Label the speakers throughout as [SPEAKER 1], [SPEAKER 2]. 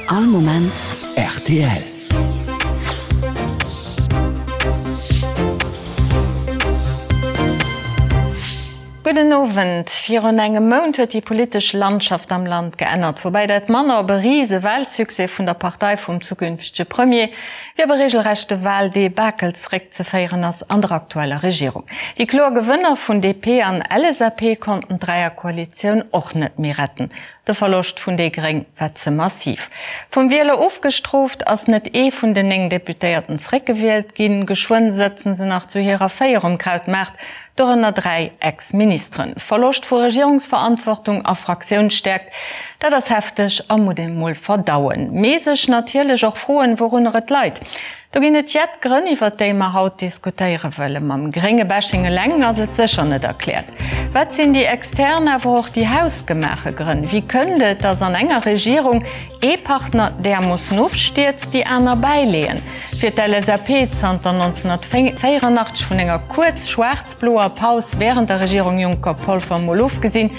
[SPEAKER 1] All Moment rtl.
[SPEAKER 2] Gudden Owend. Virun engem Mount huet déi politesch Landschaft am Land geännert, woubäi dat manner op e rise Wahlsuccès vun der Partei vum zukünftege Premier wéi op e regelrechte Wahldebakel zeréckzeféieren ass an der aktueller Regierung. Déi kloer Gewënner vun DP an LSAP konnten d'Dräierkoalitioun och net méi retten. De Verloscht vun déi Gréng war ze massiv. Vum Wieler ofgestrooft, ass net ee vun den 9 Deputéierten zeréckgewielt ginn. Geschwënn sëtzen se nach zu hirer 4 um Krautmaart, dorënner 3 Ex-Ministeren. Verloscht vu Regierungsverantwortung a Fraktiounsstäerkt, dat ass hefteg a muss ee mol verdauen. Mee sech natierlech och froen, wourunner et leit. Do ginn et jett Grënn, iwwert déi mer haut diskutéiere wëllen. Mam grénge Bashing eleng ass et sécher net erkläert. Wat sinn déi extern, awer och déi hausgemaache Grënn? Wéi kënnt et, datt an enger Regierung ee Partner därmoossen ofstierzt, déi aner bäileeën? Fir d'LSAP, zanter 1984 vun enger kuerz schwaarz-bloer Paus wärend der Regierung Juncker-Polfer mol ofgesinn,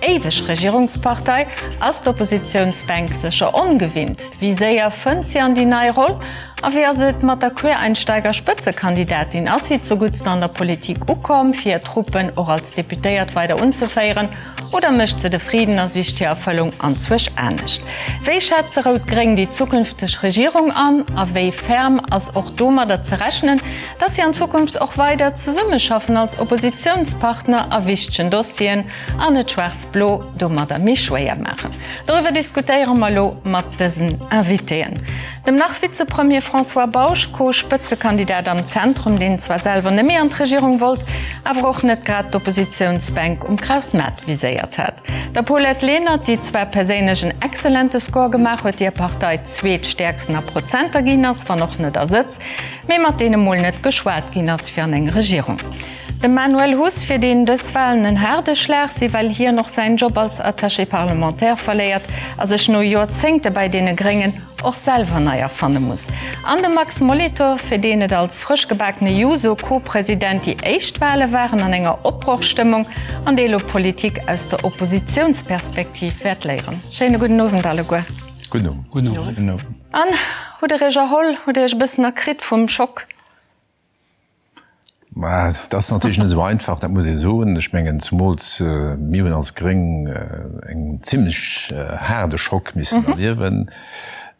[SPEAKER 2] Éiweg Regierungspartei, ass d'Oppositiounsbänk sécher ongewinnt. Wéi séier fënnt si an déi nei Roll? A wéi ass et mat der Quereinsteiger-Spëtzekandidatin? Ass si zuguttst an der Politik ukomm, fir hir Truppen och als Deputéiert weider unzeféieren? Oder mécht se de Friden a sicht hir Erfëllung anzwousch anescht? Wéi schätze Rout-Gréng déi zukünfteg Regierung an? A wéi ferm ass och domadder ze rechnen, datt si an Zukunft och weider zesummeschaffen als Oppositiounspartner a wichtegen Dossieren? An et schwaarz-blo domadder méi schwéier maachen. Doriwwer diskutéiere mer elo mat dësen Invitéen. Dem Nach-Vizepremier François Bausch, Co-Spëtzekandidat am Zentrum, deen zwar selwer net méi an d'Regierung wollt, awer och net grad d'Oppositiounsbänk um Krautmaart viséiert hat. Der Paulette Lenert, déi zwar perséinlech en excellente Score gemaach huet, déi hir Partei zweetstäerksten a Prozenter ginn ass, wann och net a Sëtz, mee mat deene mol net geschwat ginn ass fir an eng Regierung. De Manuel Huss, fir deen dës Walen en haarde Schlag si well hien och säin Job als Attaché parlementaire verléiert a sech no Joerzéngte bäi deene Gréngen och selwer nei erfanne muss. An de Max Molitor, fir deen et als frëschgebakene Juso-Co-President déi éischt Wale waren an enger Opbrochstëmmung an dee elo Politik aus der Oppositiounsperspektiv wäert léieren. Schéine gudden Owend alleguer.
[SPEAKER 3] Gudden Owend.
[SPEAKER 4] Gudden Owend.
[SPEAKER 2] An, hutt der Iech erholl? Hutt der Iech e bëssen erkritt vum Schock?
[SPEAKER 3] Mä dat ass natierlech net esou einfach, dat muss ee soen. Ech mengen, zumools mir hunn als Gréng en zimlech haarde Schock missen erliewen.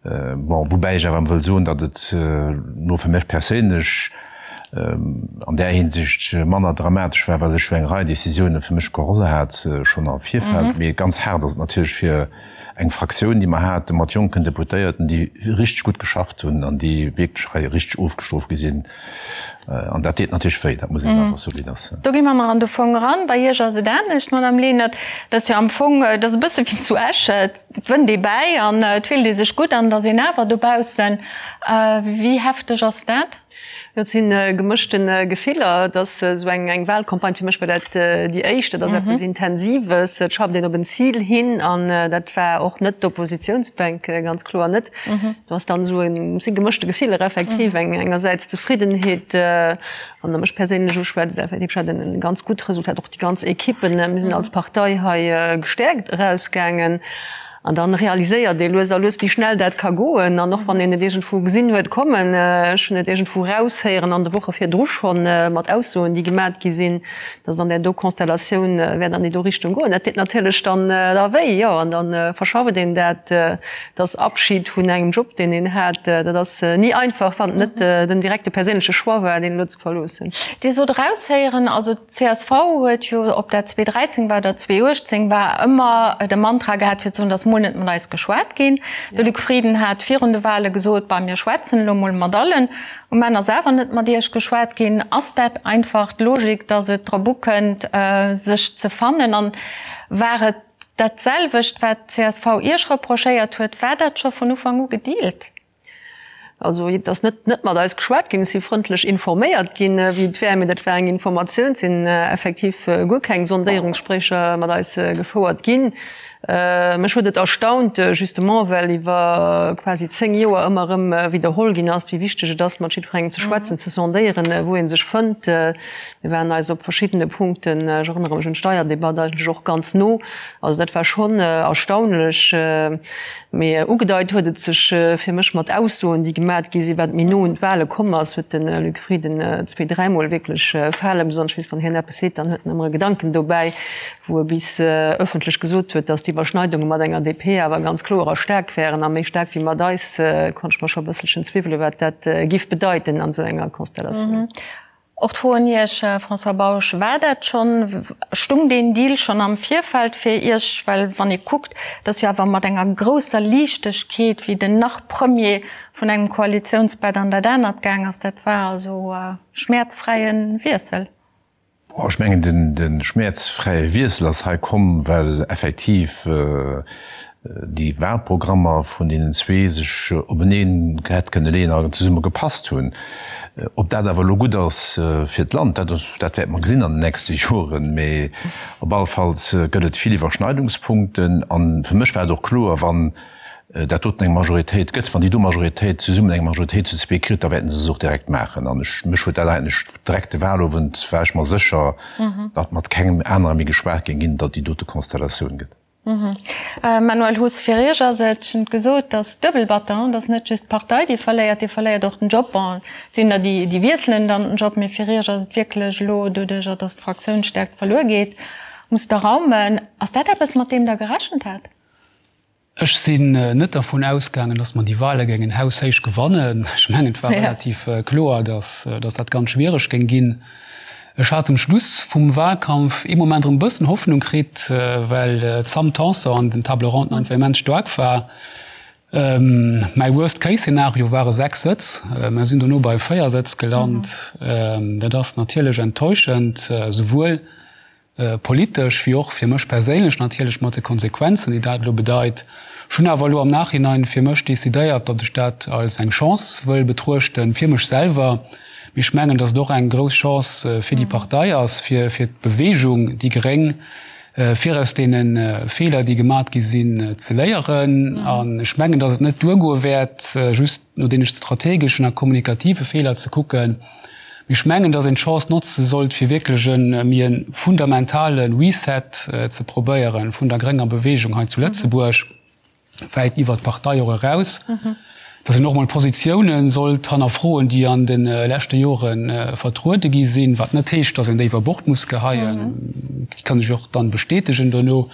[SPEAKER 3] Bon, woubäi ech awer wëll soen, datt et elo fir mech perséinlech an där Hinsicht manner dramatesch war, well ech jo eng Rei Décisiounen fir mech geholl hat schonn am Virfeld. Mee ganz haart ass et natierlech fir eng Fraktioun, déi mer hate mat jonken Deputéierten, déi richteg gutt geschafft hunn an déi wierklech hei richteg ofgestrooft gi sinn. An dat deet natierlech wéi, dat muss een einfach soen, wéi et ass.
[SPEAKER 2] Do gi mer mar an de Fong eran. Bei Iech ass et anescht, Madame Lenert. Dat ass jo am Fong, dat ass e bësse wéi zu Esch, et wënnt ee bäi an et fillt ee sech gutt an et ass een awer dobaussen. Wéi hefteg ass dat?
[SPEAKER 4] Jo, et si gemëschte Gefiller. Et ass esou eng Wahlcampagne, fir mech war dat déi éischt. Dat ass eppes Intensives, et schafft een op en Zil hin an dat war och net d'Oppositiounsbänk, ganz kloer net. Do ass dann esou en, et si gemëschte Gefiller effektiv, engersäits Zefriddenheet, wann Der mech perséinlech uschwätzt, effektiv, ech hat e ganz gutt Resultat, och déi ganz Equippen, mir sinn als Partei hei gestäerkt erausgaangen. An dann realiséiert ee lues a lues, wéi schnell dat ka goen. An och wann een et iergendwou gesinn huet kommen, ech hunn et iergendwou raushéieren an de Woche virdru schonn, mat Aussoen, déi gemat gi sinn, datt et an där do Konstellatioun wäert an déi do Richtung goen. Dat deet natierlech dann da wéi, jo. An da verschafft een dat, dass Abschid vun engem Job, deen een hat, dat ass ni einfach, wann et net den direkte perséinleche Choix war, deen elo ze verloossen.
[SPEAKER 2] Dir sot eraushéieren, also D'CSV huet jo, ob dat 2013 war oder 2018 war, ëmmer de Mantra gehat fir ze soen, dass mol net mat eis geschwat ginn. De Luc Frieden hat virun de Wahle gesot, bah mir schwätzen elo mol mat allen. Um Enn ass awer net mat Iech geschwat ginn. Ass dat einfach d'Logik, dass et drop ukënnt sech ze fannen? An war et dat selwecht wat d'CSV Iech reprochéiert huet? War dat scho vun Ufank u gedealt?
[SPEAKER 4] Also et ass net net mat eis geschwat ginn, et si frëndlech informéiert ginn, wéi et wär, mee dat war eng Informatioun. Et sinn effektiv guer keng Sondéierungsgespréicher mat eis gefouert ginn. Mech huet et erstaunt, justement well iwwer quasi 10 Joer ëmmer erëm widderholl ginn ass, wéi wichteg et ass, mat jiddwerengem ze schwätzen, ze sondéieren, wou ee sech fënnt. Mir waren eis op verschiddene Punkten, ech erënnere mech un d'Steierdebatt, eigentlech och ganz no. Also dat war schonn erstaunlech. Mee ugedeit huet et sech fir mech mat Aussoen, déi gemat gi sinn, wat méi no un d'Wale komm ass, huet de Luc Frieden zweedräimol wierklech Fale besonnesch weess, wann hien eppes seet, dann huet en ëmmer e Gedanken dobäi. wou e bis ëffentlech gesot huet, datt d'Iwwerschneidunge mat enger DP awer ganz kloer a staark wären, a méi staark wéi mat eis, konnt ech mer scho e bësselchen zwiwwelen, wat dat giff bedeiten an esou enger Konstellatioun.
[SPEAKER 2] Och d'Fro un Iech, François Bausch, War dat schonn, stung deen Deal schonn am Virfeld fir Iech? Well wann ee kuckt, datt jo awer mat enger grousser Liichtegkeet, wéi den Nach-Premier vun engem Koalitiounsbett an dat anert gaang ass, dat war also e schmäerzfräie Wiessel.
[SPEAKER 3] Ech mengen, de schmäerzfräie Wiessel ass hei komm, well effektiv déi Wahlprogrammer vun deenen zwee sech openeen hätt kënne leeën a zesumme gepasst hunn. Ob dat awer elo gutt ass fir d'Land, dat dat wäerte mer gesinn an den nächste Joren. Mee op alle Falls gëtt et vill Iwwerschneidungspunkten. A fir mech war et och kloer, wann dat doten eng Majoritéit gëtt, wann déi do Majoritéit zesummen eng Majoritéit zu zwee kritt, da wäerten se se och direkt maachen. An ech, mech huet dat eigentlech direkt de Wahlowend war ech mer sécher, datt mat kengem anere méi geschwat géing ginn, datt déi dote Konstellatioun gëtt.
[SPEAKER 2] Manuel Huss, Fir Iech ass et, ech hunn et gesot, et ass duebel batter, et ass net just d'Partei, déi verléiert, Dir verléiert och den Job. Bon, et sinn der, déi, déi wiesselen dann den Job, mee fir Iech ass et wierklech elo, doduerjer datt d'Fraktiounsstärkt verluer geet, musst Der raumen. Ass dat eppes, mat deem Der gerechent hat?
[SPEAKER 5] Ech sinn net dervun ausgaangen, datt mer déi Wahle géingen haushéich gewannen. Ech mengen, et war relativ kloer, datt dat ganz schwiereg géing ginn. Ech hat um Schluss vum Wahlkampf ee Moment erëm e bëssen Hoffnung kritt, well d'Sam Tanson an den Table Ronden einfach immens staark war. Mäi Worst-Case-Szenario ware 6 Sëtz. Mer sinn dono bei 4 Sëtz gelant. Dat ass natierlech enttäuschend, souwuel politesch wéi och fir mech perséinlech natierlech mat de Konsequenzen, déi dat elo bedeit. Ech hunn awer elo am Nachhinein fir mech decidéiert, datt ech dat als eng Chance wëll betruechten, fir mech selwer, mee ech mengen, datt et och eng grouss Chance fir déi Partei ass, fir fir d'Bewegung déi Gréng, fir aus deene Feeler, déi gemat gi sinn, ze léieren. An ech mengen, datt et net duergoe wäert, just no deene strategeschen a kommunikative Feeler ze kucken, Mee ech mengen, dass een d'Chance notze sollt, fir wierklech e méi e fundamentale Reset ze probéiere vun der grénger Bewegung hei zu Lëtzebuerg, wäit iwwert d'Partei och eraus, dass een och emol Positiounen sollt hannerfroen, déi an de leschte Jore vertruede gi sinn, wat net heescht, dass een déi iwwer Bord muss geheien, déi kann sech och dann bestätegen dono.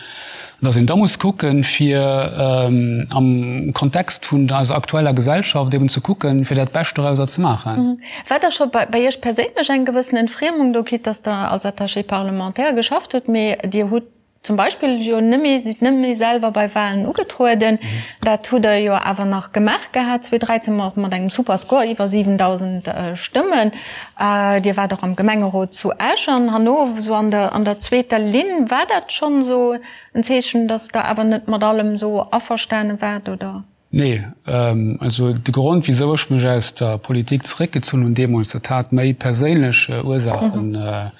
[SPEAKER 5] An dass een da muss kucken, fir am Kontext vun eiser aktueller Gesellschaft eben ze kucken, fir dat Bescht dorauser ze maachen.
[SPEAKER 2] War da scho bei Iech perséinlech eng gewëssen Entfriemung do, quitte dass Der als Attaché parlementaire geschafft hutt, mee Dir hutt zum Beispill jo net méi, sidd net méi selwer bei Wahlen ugetrueden. Dat hutt Der jo awer nach gemaach gehat 2013, och mat engem super Score, iwwer 7.000 Stëmmen. Dir waart och am Gemengerot zu Esch an herno esou an der an der zweeter Linn. War dat schonn esou en Zeechen, datt Der awer net mat allem esou averstane waart, oder?
[SPEAKER 5] Nee, also de Grond wisou ech mech aus der Politik zeréckgezunn hunn deemools, dat hat méi perséinlech Ursaachen.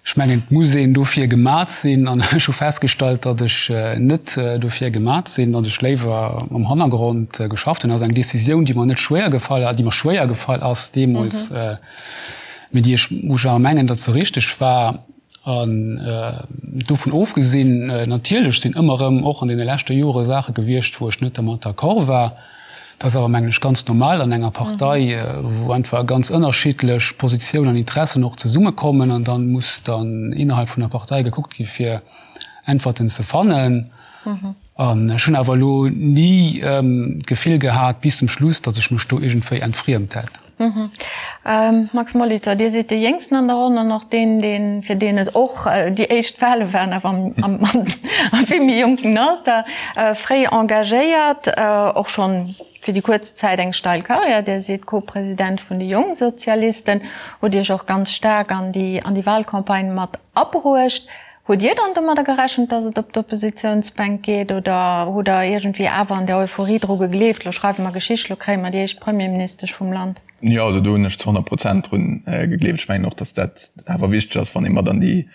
[SPEAKER 5] Ech mengen, et muss een dofir gemat sinn an ech hu festgestallt, datt ech net dofir gemat sinn, datt ech léiwer am Hannergrond geschafft hunn. Dat ass eng Decisioun, déi mer net schwéier gefall, déi mer schwéier gefall ass deemools, mee déi ech, wou ech awer mengen, datt se richteg war. An dovun ofgesinn, natierlech sinn ëmmer erëm och an deene leschte Jore Saache gewiescht, wou ech net dermat d'accord war. Dat ass awer, mengen ech, ganz normal an enger Partei, wou einfach ganz ënnerschiddlech Positiounen an Interessen och zesummekommen. An da muss dann innerhalb vun der Partei gekuckt gi fir Äntwerten ze fannen. An ech hunn awer elo ni d'Gefill gehat bis zum Schluss, datt ech mech do iergendwéi entfriemt hätt.
[SPEAKER 2] Max Molitor, Dir sidd dee Jéngsten an der Ronn an och deen, deen, fir deen et och déi éischt Wale waren, awer am, am vill méi jonken Alter, fréi engagéiert, och schonn fir déi kuerz Zäit eng steil Karriär. Dir sidd Co-President vun de Jongsozialisten, hutt Iech och ganz staark an déi, an déi Walcampagne mat abruecht. Hutt Dir dann domadder gerechent, datt et op d'Oppositiounsbänk geet oder hutt Der iergendwéi awer an der Euphorie dru gegleeft, lo schreiwe mer Geschicht, lo kréie mer déi éischt Premierministesch vum Land?
[SPEAKER 6] Jo, also do hunn ech zu 100 Prozent drun gegleeft. Ech mengen och, datt dat awer wichteg ass, wann ee mat an déi.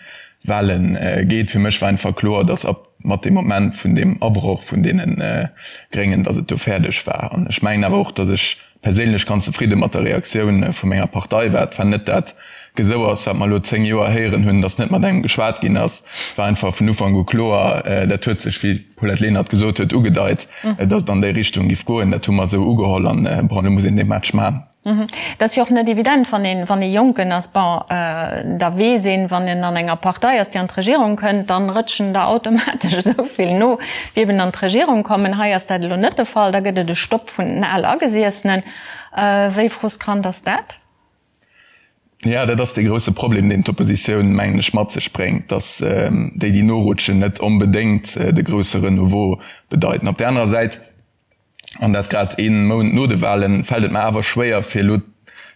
[SPEAKER 6] Wale geet. Fir mech war einfach kloer, datt ab mat deem Moment vun deem Abroch vun deene Gréngen, datt et do fäerdeg war. An ech mengen awer och, datt ech perséinlech ganz zefridde mat der Reaktioun vu menger Partei war. Et war net dat Gesouers, wat mer elo 10 Joer héieren hunn, datt net mat engem geschwat ginn ass. Et war einfach vun Ufank u kloer, dat huet sech, wéi d'Paulette Lenert gesot huet, ugedeit, datt et an déi Richtung giff goen. Dat hu mer esou ugeholl an, bon, elo muss een dee Match maachen.
[SPEAKER 2] Et ass jo och net evident, wann een, wann ee Jonken ass, bon, da weess een, wann een an enger Partei ass, déi an d'Regierung kënnt, dann rëtschen der automatesch esou vill no, wéi eben an d'Regierung kommen. Hei ass dat elo net de Fall, da gëtt et e Stopp vun den Alagesessenen. Wéi frustrant ass dat?
[SPEAKER 6] Jo, dat ass dee grousse Problem, deen d'Oppositioun, mengen ech, mat sech bréngt, datt déi, déi norutschen, net onbedéngt de grousse Renouveau bedeiten. Op där anerer Säit, an dat grad ee Mount no de Wahlen, fält et mer awer schwéier fir elo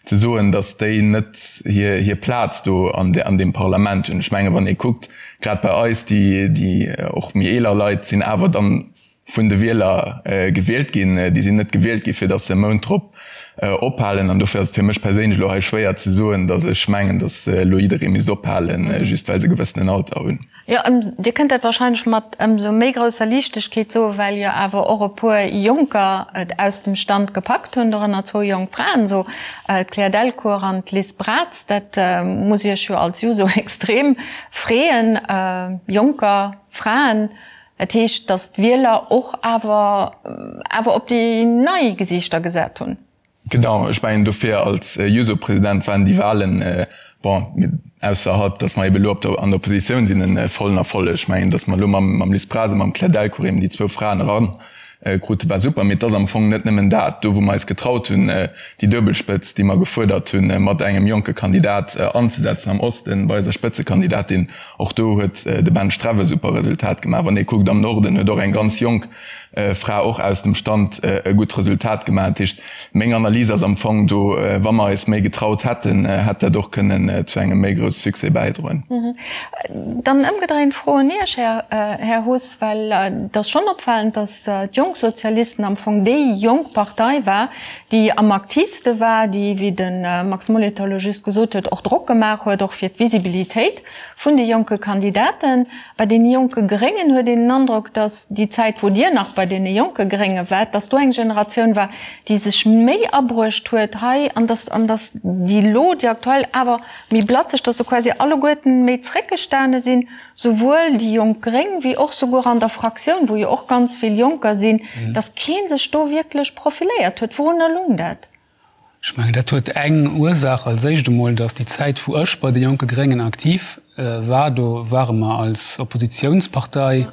[SPEAKER 6] ze soen, datt déi net hir Plaz do an deem Parlament hunn. Ech menge wann ee kuckt, grad bei eis, déi och méi eeler Leit sinn awer dann vun de Wieler gewielt ginn, déi sinn net gewielt gi fir datt se e Mount drop ophalen. An dofir ass et fir mech perséinlech elo hei schwéier ze soen, datt ech mengen, datt elo jidderee misst ophalen, just well se e gewëssenen Alter hunn.
[SPEAKER 2] Jo, Dir kënnt dat wahrscheinlech mat ëmsou méi grousser Liichtegkeet soen, well jo awer och e puer Jonker et aus dem Stand gepackt hunn, dorënner zwou jonk Fraen, esou d'Claire Delcourt an d'Liz Braz. Dat muss Iech jo als Juso extrem freeën, Jonker, Fraen. Dat heescht, datt d'Wieler och awer awer op déi nei Gesiichter gesat hunn.
[SPEAKER 6] Genau, ech mengen dofir als Juso-President waren déi Wahlen, bon, ausserhalb datt mer ebe lo op der an der Oppositioun sinn, e vollen Erfolleg. Ech mengen, datt mer elo mam mam Liz Braz a mam Claire Delcourt eben déi zwou Fraen eran krute war super. Mee et ass am Fong net nëmmen dat. Do wou mer eis getraut hunn, déi Duebelspëtz, déi mer gefuerdert hunn, mat engem jonke Kandidat anzesetzen am Osten bei eiser Spëtzekandidatin, och do huet de Ben Streff e super Resultat gemaach. Wann ee kuckt am Norden huet och eng ganz jonk Fra och aus dem Stand e gutt Resultat gemaach. Dat heescht, meng Analys ass am Fong do, wa mer eis méi getraut hätten, hätt dat och kënnen zu engem méi grousse Succès bäidroen.
[SPEAKER 2] Dann ëmgedréint d'Fro un Iech, Här Huss, well et ass schonn opfalend, datt d'Jonk Sozialisten am Fong déi jonk Partei war, déi am aktiivste war, déi, wéi de Max Molitor elo just gesot huet, och Drock gemaach huet, och fir d'Visibilitéit vun de jonke Kandidaten. Bei deene jonke Gréngen huet een den Androck, datt déi Zäit, wou Dir nach bei deene jonke Grénge waart, datt do eng Generatioun war, déi sech méi abruecht huet hei an datt, an datt déi elo, déi aktuell, awer méi blatzeg, datt se quasi alleguerten méi zréckgestane sinn, souwuel déi jonk Gréng wéi och souguer an der Fraktioun, wou jo och ganz vill Jonker sinn, datt kee sech do wierklech profiléiert huet. Wourunner lung dat?
[SPEAKER 5] Ech mengen, dat huet eng Ursaach, als éischt emol, datt déi Zäit, wou ech bei de Jonke Gréngen aktiv war, do ware mer als Oppositiounspartei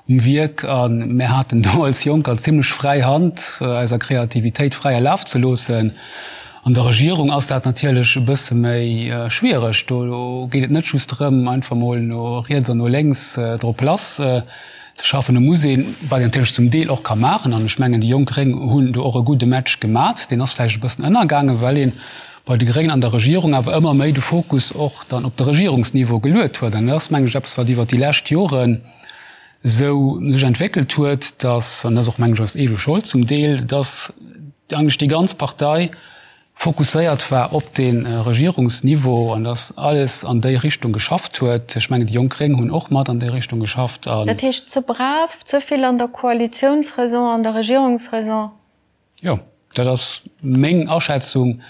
[SPEAKER 5] um Wierk a mir haten do als Jonker zimlech fräi Hand, eiser Kreativitéit fräie Laf ze loossen. An der Regierung ass dat natierlech e bësse méi schwiereg. Do geet et net just drëm, einfach mol no riets an no lénks drop lass ze schaffen. Do muss een, wat een natierlech zum Deel och ka maachen, an ech mengen, déi jonk Gréng hunn do och e gudde Match gemat, deen ass vläicht e bëssen ënnergaangen, well ee bei de Gréngen an der Regierung awer ëmmer méi de Fokus och dann op de Regierungsniveau geluet huet. An dat ass, mengen ech, eppes, wat iwwert déi lescht Joren esou sech entwéckelt huet, dass, an dat ass och, mengen ech, eis eege Schold zum Deel, dass eigentlech déi ganz Partei fokusséiert war op de Regierungsniveau an dass alles an déi Richtung geschafft huet. Ech mengen, déi jonk Gréng hunn och mat an déi Richtung geschafft.
[SPEAKER 2] Dat heescht, ze brav, ze vill an der Koalitiounsraison, an der Regierungsraison?
[SPEAKER 5] Jo, dat ass meng Aschätzung,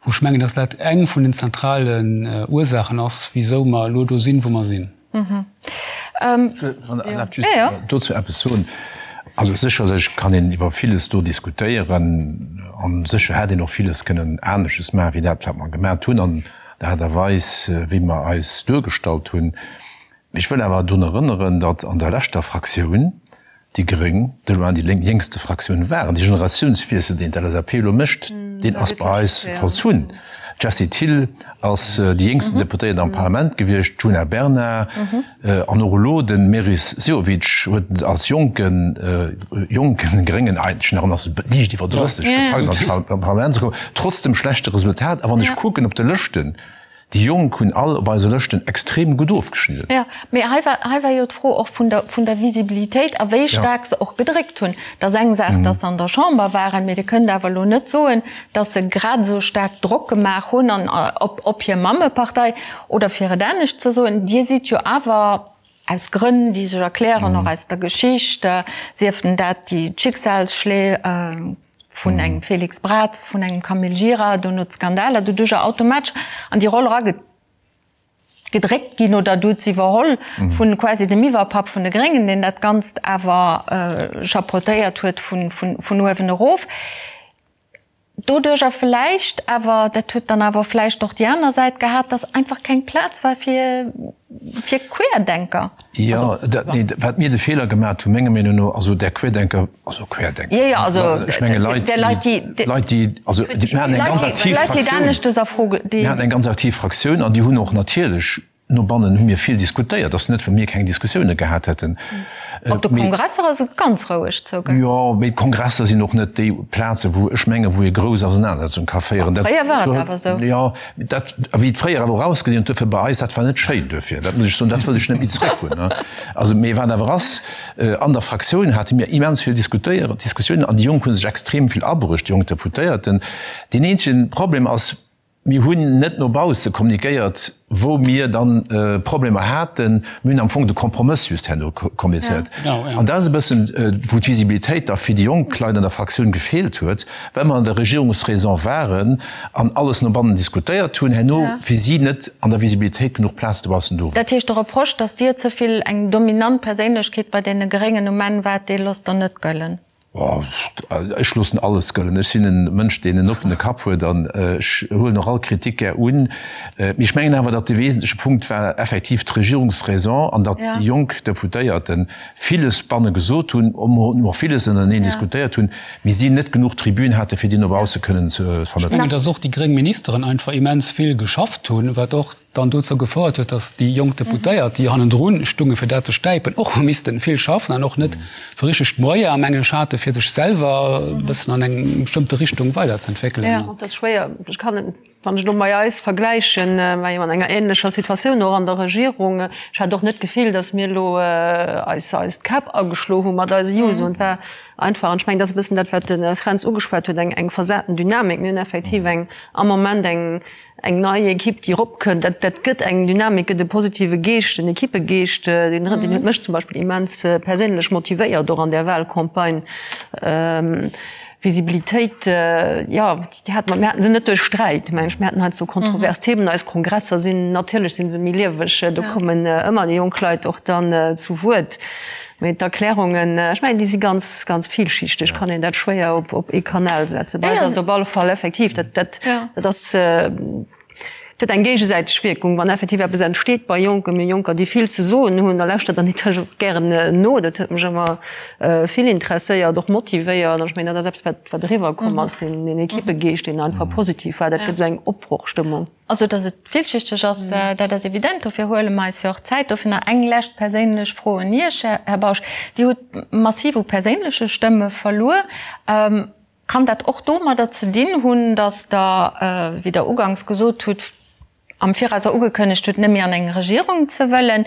[SPEAKER 5] wou ech mengen, dass dat eng vun den zentralen Ursaachen ass, wisou mer elo do sinn, wou mer sinn.
[SPEAKER 3] Wann Der erlaabt, just dozou eppes soen. Also sécherlech kann een iwwer villes do diskutéieren a sécher hätt een och villes kënnen anesches maachen, wéi dat, wat mer gemat hunn an der Aart a Weis, wéi mer eis duergestallt hunn. Mee ech wëll awer drun erënneren, datt an der leschter Fraktioun déi Gréng de loin déi jéngste Fraktioun waren. Dee Generatiounswiessel, deen d'LSAP elo mécht, deen ass bei eis vollzunn. D'Jessie Thill ass déi jéngsten Deputéiert am Parlament gewiescht, d'Djuna Bernard an och elo de Meris Sehovic huet als jonken, jonken Gréngen eigentlech nach, en ass liicht iwwer 30, gepackt an d'Parlament ze kommen, trotz dem schlechte Resultat. A wann ech kucken op de Lëschten,. Déi Jonk hunn all op eise Lëschten extrem gutt ofgeschnidden.
[SPEAKER 2] Jo, mee hei war, hei war jo d'Fro och vun der, vun der Visibilitéit a wéi staark se och gedréckt hunn. Et ass eng Saach, datt se an der Chamber waren, mee Dir kënnt awer elo net soen, datt se grad esou staark Drock gemaach hunn an op, op hir Mammepartei. Oder fir et anescht ze soen, Dir sidd jo awer, aus Grënn, déi sech erklären, och aus der Geschicht, sief denn dat déi d'Schicksalsschléi, vun engem Félix Braz, vun engem Camille Gira, dono d'Skandaler, doduercher automatesch an déi Roll eragedréckt ginn oder du huet se iwwerholl vu quasi dem Iwwerpapp vun de Gréngen, deen dat Ganzt awer chapeautéiert huet vun uewen erof. Doduercher vläicht awer, dat huet dann awer vläicht och déi aner Säit gehat, datt einfach keng Plaz war fir fir Querdenker.
[SPEAKER 3] Jo, dat, nee, wat mir de Feeler gemat hunn, menger Meenung no, also där Querdenker, also Querdenker,
[SPEAKER 2] jo, jo, also
[SPEAKER 3] ech menge Leit,
[SPEAKER 2] Leit, déi,
[SPEAKER 3] Leit, déi, also mir haten eng ganz aktiv
[SPEAKER 2] Leit, déi aneschtes a Fro,
[SPEAKER 3] déi. Mir haten eng ganz aktiv Fraktioun an déi hunn och natierlech No bannen hu mir vill diskutéiert, ass net, well mir keng Diskussioune gehat hätten.
[SPEAKER 2] Op de Kongresser ass et ganz roueg
[SPEAKER 3] zougaangen. Jo, mee d'Kongresser sinn och net déi Plazen, wou ech mengen, wou ee grouss Ausenanersetzung ka féieren.
[SPEAKER 2] Fréier war et awer esou.
[SPEAKER 3] Jo, dat, a wéi et fréier awer och ausgesinn huet, duerfir bei eis, dat war net schéin duerfir, dat muss ech soen, dat wëll ech net méi zréck hunn. Also, mee wat awer ass, an der Fraktioun hate mir immens vill Diskutéieren, Diskussiounen an déi Jonk hu sech extrem vill abruecht, déi jonk Deputéierten. Deen eenzege Problem ass, Mir hunn net no bausse kommunikéiert, wou mir dann Problemer haten. Mir hunn am Fong de Kompromëss just herno kommuniziert. An dat ass e bëssen, wou d'Visibilitéit da fir déi jonk Leit an der Fraktioun gefeelt huet, well mer an der Regierungsraison waren an alles no bannen diskutéiert hunn, herno fir si net an der Visibilitéit genuch Plaz dobaussen do war.
[SPEAKER 2] Dat heescht, de Reproche, datt Dir ze vill eng dominant Perséinlechkeet bei deene Gréngen um Enn waart, dee loosst Der net gëllen?
[SPEAKER 3] Ech loossen alles gëllen. Ech sinn e Mënsch, deen en oppene Kapp huet an ech huelen och all Kritik gär un. Mee ech mengen awer, datt de wesentleche Punkt war effektiv d'Regierungsraison an datt déi jonk Deputéierte villes banne gesot hunn, och villes ënnereneen diskutéiert hunn, mee si net genuch Tribün hate fir déi no bausse kënnen ze
[SPEAKER 5] vermëttelen. Ech mengen, datt och déi gréng Ministeren einfach immens vill geschafft hunn, wat och dann dozou gefouert huet, datt déi jonk Deputéiert, déi hannendrun stunge fir dat ze stäipen, och hu missten vill schaffen an och net esou richteg d'Moyer, mengen ech, hate fir sech selwer e bëssen an eng bestëmmte Richtung weiderzentwéckelen.
[SPEAKER 4] Jo, dat ass schwéier. Ech kann et, wann ech elo mei eis vergläichen, war jo an enger ähnlecher Situatioun och an der Regierung. Ech hat och net d'Gefill, datt mir elo eis eis d'Käpp ageschlo hu mat eise Juso. Et war einfach, an ech mengen, dat ass e bëssen dat, wat de Fränz ugeschwat huet, eng eng versaten Dynamik. Mir hunn effektiv eng am Moment eng Eng nei Ekipp, déi eropkënnt, dat, dat gëtt eng Dynamik, gëtt e positive Geescht, en Ekippegeescht, deen, deen huet mech zum Beispill immens perséinlech motivéiert, och an där Wahlcampagne. Visibilitéit, jo, déi hate mer, mir haten se net duerch Sträit, meng ech. Mir haten heiansdo kontrovers Themen. Eis Kongresser sinn, natierlech si se méi lieweg, do kommen ëmmer déi jonk Leit och dann zu Wuert. Mee d'Erklärungen, ech mengen, déi si ganz, ganz villschichteg, kann een dat schwéier op, op ee Kanal setzen. Bei eis ass et op alle Fall effektiv, dat, dat, dat ass, dat huet eng géigesäiteg Wierkung. Wann effektiv eppes entsteet bei Jonken, mir Jonker, déi vill ze soen hunn, da lauschtert der natierlech och gären no. Dat huet mech ëmmer vill interesséiert, och motivéiert. An ech mengen, dat ass eppes, wat, wat eriwwerkomm ass, deen, deen Ekippegeescht, deen einfach positiv war. Dat gëtt esou eng Opbrochstëmmung.
[SPEAKER 2] Also, datt et villschichteg ass, dat ass evident. Dofir huele mer eis jo och Zäit. Dofir nach eng lescht perséinlech Fro un Iech, Här Bausch. Dir hutt massiv u perséinleche Stëmme verluer. Kann dat och domadder ze dinn hunn, datt Der, wéi Der uganks gesot hutt, am Viraus och ugekënnegt hutt, net méi an eng Regierung ze wëllen?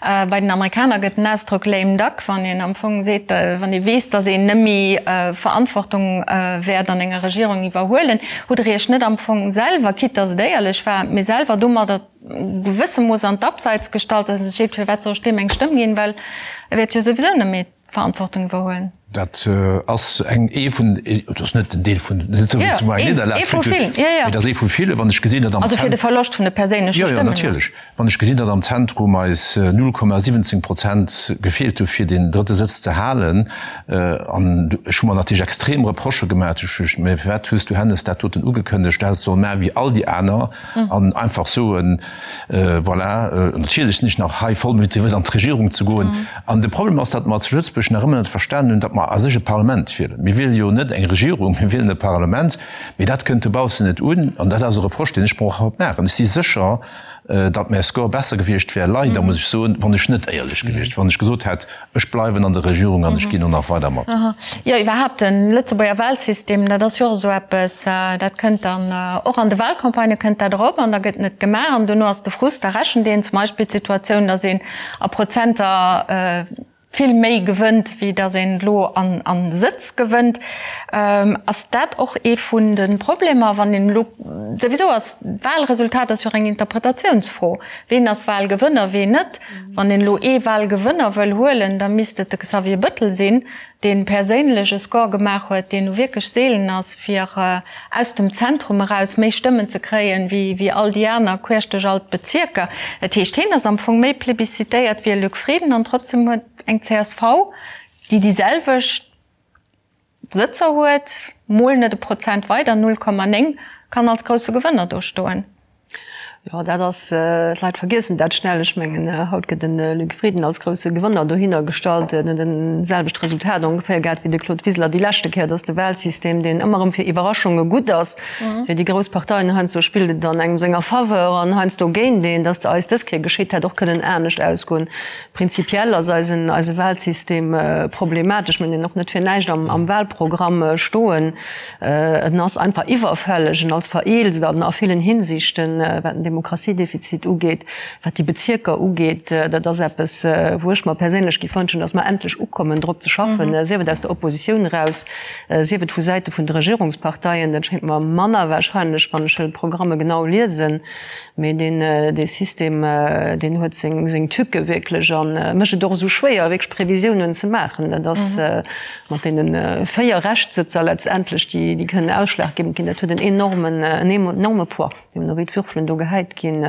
[SPEAKER 2] Bei den Amerikaner gëtt den Ausdrock lame duck, wann een am Fong seet, wann ee weess, datt een net méi Verantwortung wäert an enger Regierung iwwerhuelen. Hutt Der Iech net am Fong selwer, quitte datt et éierlech war, mee selwer domadder gewësse Mooss an d'Abseits gestallt, datt een sech seet, firwat soll ech deem eng Stëmm ginn, well e wäert jo souwisou net méi Verantwortung iwwerhuelen?
[SPEAKER 3] Dat ass eng, ee vun, et ass net den Deel vun, net esou wéi zu mer eng Nidderlag
[SPEAKER 2] kritt huet,
[SPEAKER 3] mee et ass ee vu ville, wann ech gesinn, datt am
[SPEAKER 2] Also fir de Verloscht vun de perséinleche
[SPEAKER 3] Stëmmen. Jo, jo, natierlech. Wann ech gesinn, datt am Zentrum eis 0,17 Prozent gefeelt hu fir deen drëtte Sëtz ze halen, an ech hu mer natierlech extrem Reprochë gemaach, ech hu, mä firwat hues du Hennes dat doten ugekënnegt, du häss et solle maache wéi all déi aner an einfach soen, Voilà, natierlech sinn ech nach hei voll motivéiert an d'Regierung ze goen. An de Problem ass, datt mer zu Lëtzebuerg nach ëmmer net verstanen hunn, datt mer a sech e Parlament wielen. Mir wiele jo net eng Regierung, mir wielen e Parlament. Mee dat kënnt dobaussen net un. An dat ass e Reproche, deen ech mer och haut maachen. Ech si sécher. datt mäi Score besser gewiescht wär, leider muss ech soen, wann ech net éierlech gewiescht, wann ech gesot hätt, ech bleiwen an der Regierung an ech ginn och nach weider mat.
[SPEAKER 2] Jo, iwwerhaapt de Lëtzebuerger Wahlsystem, dat ass jo och esou eppes, dat kënnt dann och an de Wahlcampagnë kënnt dat erop an da gëtt net gemaach an dono ass de Frust, da rechent een zum Beispill d'Situatioun, datt een a Prozenter, vill méi gewënnt, wéi datt een elo a Sëtz gewënnt. Ass dat och ee vun de Problemer, wann een elo, souwisou ass d'Wahlresultat ass jo och eng Interpretatiounsfro, ween ass Wahlgewënner, ween net. Wann een elo ee Wahlgewënner wëll huelen, da misst et de Xavier Bëttel sinn, dee perséinlech e Score gemaach huet, deen nu wierklech seelen ass, fir aus dem Zentrum eraus méi Stëmmen ze kréien, wéi all déi aner queesch duerch all d'Bezierker. Dat heescht, hien ass am Fong méi plebiszitéiert wéi e Luc Frieden an trotzdem huet eng csv, déi déi selwecht Sëtzer huet, mol net e Prozent weider, 0,9, kann als grousse Gewënner do stoen.
[SPEAKER 4] Jo, dat ass, d'Leit vergiessen dat schnell. Ech mengen, haut gëtt de Luc Frieden als grousse Gewënner dohinner gestallt. En huet en selwecht Resultat ongeféier gehat wéi de Claude Wiseler déi leschte Kéier. Et ass de Wahlsystem, deen ëmmer erëm fir Iwwerraschunge gutt ass. Fir déi grouss Parteien heiansdo spillt et an engem senger Faveur an heiansdo géint een. Datt eis dës Kéier geschitt, hätt och kënnen anescht ausgoen. Prinzipiell ass eisen, eise Wahlsystem problematesch. Mir hunn en och net fir näischt am Wahlprogramm stoen. En ass einfach iwwerfälleg, en als vereelzt an a villen Hinsichten, wat den Demokratiedefizit ugeet, wat déi Bezierker ugeet. Dat ass eppes, wou ech mer perséinlech géif wënschen, datt mer endlech ukommen, drop ze schaffen, sief et aus der Oppositioun eraus, sief et vu Säite vun de Regierungsparteien. Dat schéngt mer manner wahrscheinlech, wann ech d'Programme genau liesen. Mee deen, dee System, deen huet seng, seng Tücke wierklech a mécht et och esou schwéier, wierklech Previsiounen ze maachen. Dat ass mat deene 4 Reschtsëtzer letztendlech, déi, déi kënnen ausschlaggebend ginn. Dat huet en enormen, en enorme Poids, deemno wéi d'Würfelen do gehäit ginn.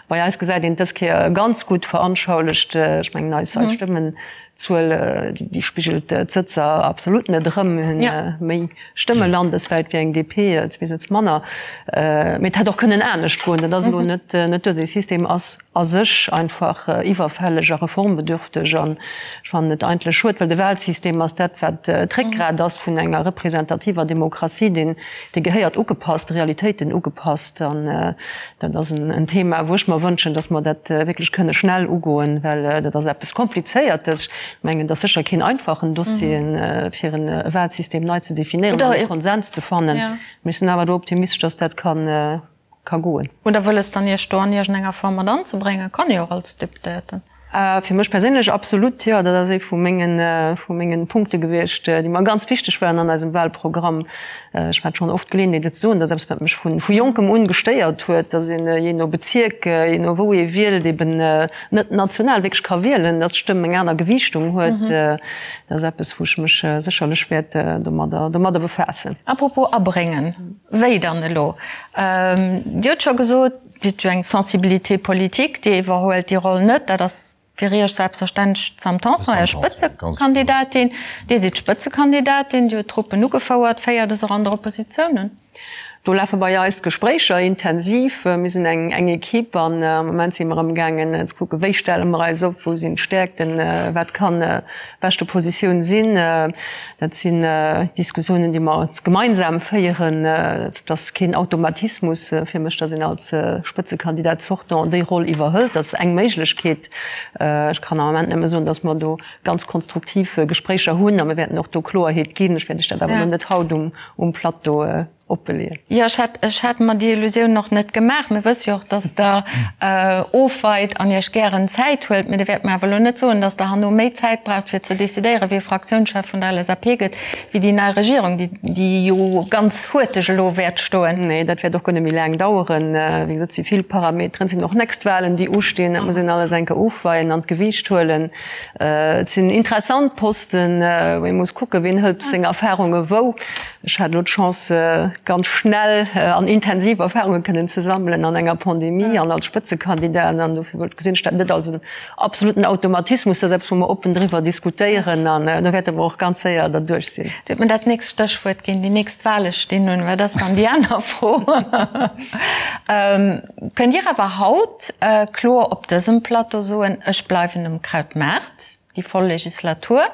[SPEAKER 4] Bei eis gesäit een et dës Kéier ganz gutt veranschaulecht. Ech mengen, eis, eis Stëmmenzuel, déi spigelt d'Sëtzer absolut net erëm. Mir hunn méi Stëmme landeswäit wéi eng DP, zwee Sëtz manner. Mee et hätt och kënnen anescht goen. Dat ass elo net duer. Dee System ass a sech einfach iwwerfälleg a reformbedürfteg. An ech fannen et eigentlech schued, well de Wahlsystem ass dat, wat d'Réckgrat ass vun enger representativer Demokratie. Deen, dee gehéiert ugepasst, de Realitéiten ugepasst. An dat ass en Thema, wou ech mer wënschen, datt mer dat wierklech kënne schnell ugoen, well dat ass eppes Komplizéiertes. Ech mengen, et ass sécher keen einfachen Dossier, fir e Wahlsystem nei ze definéieren an e Konsens ze fannen. Mee ech sinn awer do optimistesch, datt dat ka goen.
[SPEAKER 2] Hutt Der wëlles dann, Iech do an iergendenger Form mat anzebréngen? Kann ee jo och als Deputéierten.
[SPEAKER 4] Fir mech perséinlech absolut, jo. Dat ass ee vu mengen, vu mengen Punkte gewiescht, déi mer ganz wichteg waren an eisem Wahlprogramm. Ech hat schonn oft d'Geleeënheet, et ze soen, dat ass eppes, wat mech vu, vu Jonkem un gestéiert huet, datt een jee no Bezierk, jee no wou ee wielt, eben net national wierklech ka wielen, datt d'Stëmm eng aner Gewiichtung huet. Dat ass eppes, wou ech mech sécherlech wäert domadder, domadder befaassen.
[SPEAKER 2] Apropos abréngen, wéi dann elo? Dir hutt scho gesot, Dir hutt jo eng Sensibilité politique, Dir iwwerhuelt déi Roll net. Dat ass fir Iech selbstverständlech d'Sam Tanson, Är Spëtzekandidatin. Dir sidd Spëtzekandidatin, Dir hutt d'Truppen ugefouert. Féiert e se och an der Oppositioun un?
[SPEAKER 4] Do lafe bei eis d'Gespréicher intensiv. Mir sinn eng Equipe an am Moment si mer amgaangen ze kucken, wéi stelle mer eis op, wou sinn d'Stäerkten, wat kann beschte Positioun sinn. Dat sinn Diskussiounen, déi mer gemeinsam féieren. Et ass keen Automatismus fir mech, datt een als Spëtzekandidat sortant déi Roll iwwerhëlt. Dat ass eng Méiglechkeet. Ech kann am Ament nëmme soen, datt mer do ganz konstruktiv Gespréicher hunn a mir wäerten och do Kloerheet ginn. Ech wäert Iech dat awer elo net haut um Plateau opbeleeën.
[SPEAKER 2] Jo, ech hat, ech hat mer déi Illusioun och net gemaach. Mir wësse jo och, dass Der ofweit an Iech gären Zäit huelt. Mee Dir wäert mer awer elo net soen, dass Der herno méi Zäit braucht, fir ze decidéieren, wie Fraktiounschef vun der LSAP gëtt, wéi déi nei Regierung, déi, déi jo ganz huerteg elo wäert stoen.
[SPEAKER 4] Nee, dat wäert och guer net méi laang daueren. Wéi gesot, et si vill Parameteren, et sinn och nächst Wahlen, déi ustinn. Dat muss een alles eng Kéier ofweien an d'Gewiicht huelen. Et sinn interessant Posten, wou ee muss kucken, wien hëlt seng Erfahrunge wou. Ech hat elo d'Chance, ganz schnell an intensiv Erfahrunge kënnen ze sammelen an enger Pandemie an als Spëtzekandidat. An dofir wollt gesinn ech dat net als en absoluten Automatismus. Dat ass eppes, wou mer oppen driwwer diskutéieren an do wäerte mer och ganz séier derduerch sinn.
[SPEAKER 2] Dir hutt mir dat nächst Stéchwuert ginn, Déi nächst Wahle stinn un. Wat ass dann déi aner Fro? Kënnt Dir awer haut kloer op dësem Plateau soen, ech bleiwen um Krautmaart déi voll Legislatur,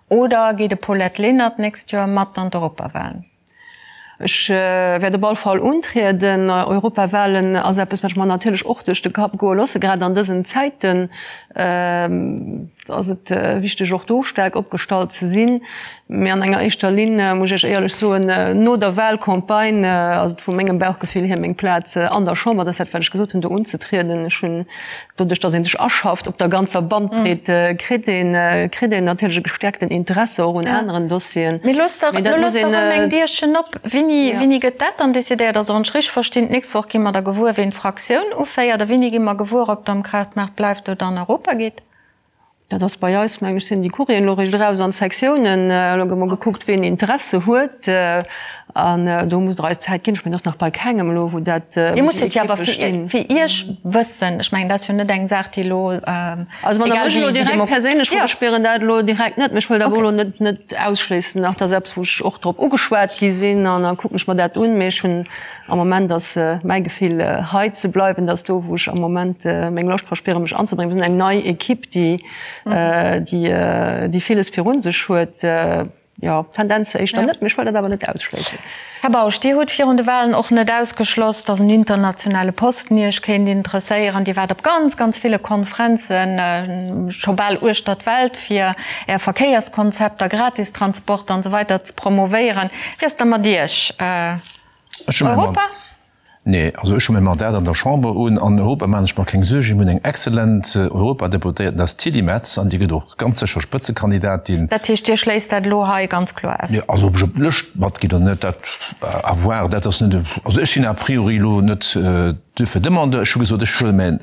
[SPEAKER 2] oder geet e Paulette Lenert d'nächst Joer mat an d'Europawahlen?
[SPEAKER 4] Ech wäert op all Fall untrieden. Europawahlen ass eppes, wat ech mer natierlech och duerch de Kapp goe loosse. Grad an dësen Zäiten ass et wichteg, och do staark opgestallt ze sinn. Mee an enger éischter Linn, muss ech Iech éierlech soen, no der Wahlcampagne ass et vu mengem Bauchgefill hier meng Plaz an der Chamber, dat ass dat, wat ech gesot hunn, do unzetrieden. Ech hunn Doduerch, datt ee sech aschafft op der ganzer Bandbreet, kritt een, kritt een natierlech e gestärkten Interesse och un aneren Dossieren.
[SPEAKER 2] Mee loosst dach, lo loosst dach erëm eng Dierchen op. Wéini, wéini gëtt dat dann decidéiert? Also wann ech richteg verstinn, d'nächst Woch gi mer da gewuer, ween d'Fraktioun uféiert. A wéini gi mer gewuer, ob Der am Krautmaart bleift oder an Europa gitt?
[SPEAKER 4] Dat ass bei eis, mengen ech, sinn déi Courrieren elo eréischt eraus an d'Sektiounen. Elo gëtt mol gekuckt, ween Interesse huet. An do musst Der eis Zäit ginn. Ech mengen, et ass nach bei kengem elo, wou dat,
[SPEAKER 2] wou Dir musst et jo awer fir, fir Iech wëssen. Ech mengen, dat ass jo net eng Saach, déi elo,
[SPEAKER 4] Also wann Der mech elo direkt perséinlech frot, ech spieren dat elo direkt net. Mee ech wëllt awer elo net, net ausschléissen nach. Dat ass eppes, wou ech och drop ugeschwat gi sinn an da kucken ech mer dat un. Mee ech hunn Am Moment ass mäi Gefill hei ze bleiwen, dat ass do wou ech am Moment meng Loscht verspieren mech anzebréngen. Mir sinn eng nei Equipe déi déi villes virun sech huet. Jo, Tendenz éischter net, mee ech wëll dat awer net ausschléissen.
[SPEAKER 2] Här Bausch, Dir hutt virun de Wahlen och net ausgeschloss, datt en internationale Posten Iech kéint interesséieren. Dir waart op ganz, ganz ville Konferenzen, scho bal uechter d'Welt, fir Är Verkéierskonzepter, Gratistransport an esou weider ze promovéieren. Wéi ass da mat Iech?
[SPEAKER 3] Europa? Nee, also ech hu mäi Mandat an der Chamber un. An Europa maachen ech mer keng Suergen. Mir hunn eng exzellent Europadeputéierten, dat ass d'Tilly Metz, an déi gëtt och ganz sécher Spëtzekandidatin.
[SPEAKER 2] Dat heescht, Dir schléisst dat elo hei ganz kloer aus?
[SPEAKER 3] Nee, also ob ech op d'Lëscht matginn oder net, dat à voir. Dat ass net, also ech sinn a priori elo net duerfir Demandeur. Ech hu gesot, ech huele mäin,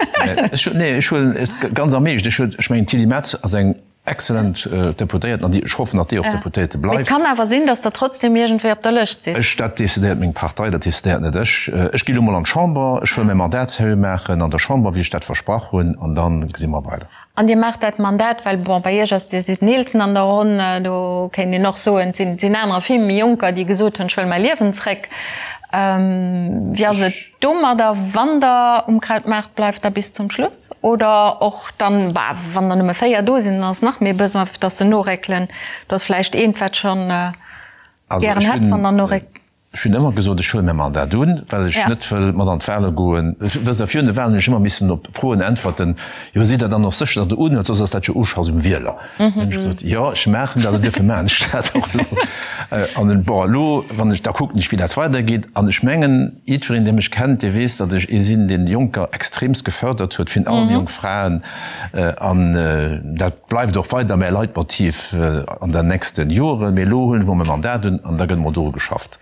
[SPEAKER 3] ech, nee, ech huelen et ganz am Eescht. Ech huelen, ech mengen, d'Tilly Metz ass eng Excellent Deputéierten, an déi, ech hoffen, datt déi och Deputéierte
[SPEAKER 2] bleift. Mee et kann awer sinn, datt Der trotzdem iergendwéi op der Lëscht sidd.
[SPEAKER 3] Ech, dat decidéiert meng Partei, dat decidéiert net ech. Ech gi elo mol an d'Chamber, ech wëll mäi Mandat seriö maachen an der Chamber, wéi ech dat versprach hunn, an da gesi mer weider.
[SPEAKER 2] An Dir maacht dat Mandat, well, bon, bei Iech ass, Dir sidd den Eelsten an der Ronn, do kéint een och soen, et sinn anerer, vill méi Jonker, déi gesot hunn, ech wëll mäi Liewen zréck. Wéi ass et domadder, wann Der um Krautmaart bleift, da bis zum Schluss oder och dann, bah, wann der nëmme 4 do sinn, dann ass nach méi Besoin, dass se noréckelen. Do ass vläicht eent, wat schonn gären hätt, wann der noréckt.
[SPEAKER 3] Ech hunn ëmmer gesot, ech huele mäi Mandat un, well ech net wëll mat an d'Wale goen. Wësst Der, virun de Walen hunn ech ëmmer missen op Froen äntwerten, Jo, sidd Der dann och sécher, datt Der unhuelt, soss ass dat jo Uschass um Wieler. Dann hunn ech gesot, Jo, ech maachen dat an duerfir maachen ech dat och elo. An bon, elo, wann ech, da kucken ech, wéi dat weidergeet. An ech mengen, jiddwereen, dee mech kennt, dee weess, datt ech ee sinn, deen Jonker extremst gefördert huet, virun allem jonk Fraen. An dat bleift och weider mäi Leitmotiv an den nächste Joren. Mee elo huelen ech mol mäi Mandat un an da gëtt emol doru geschafft.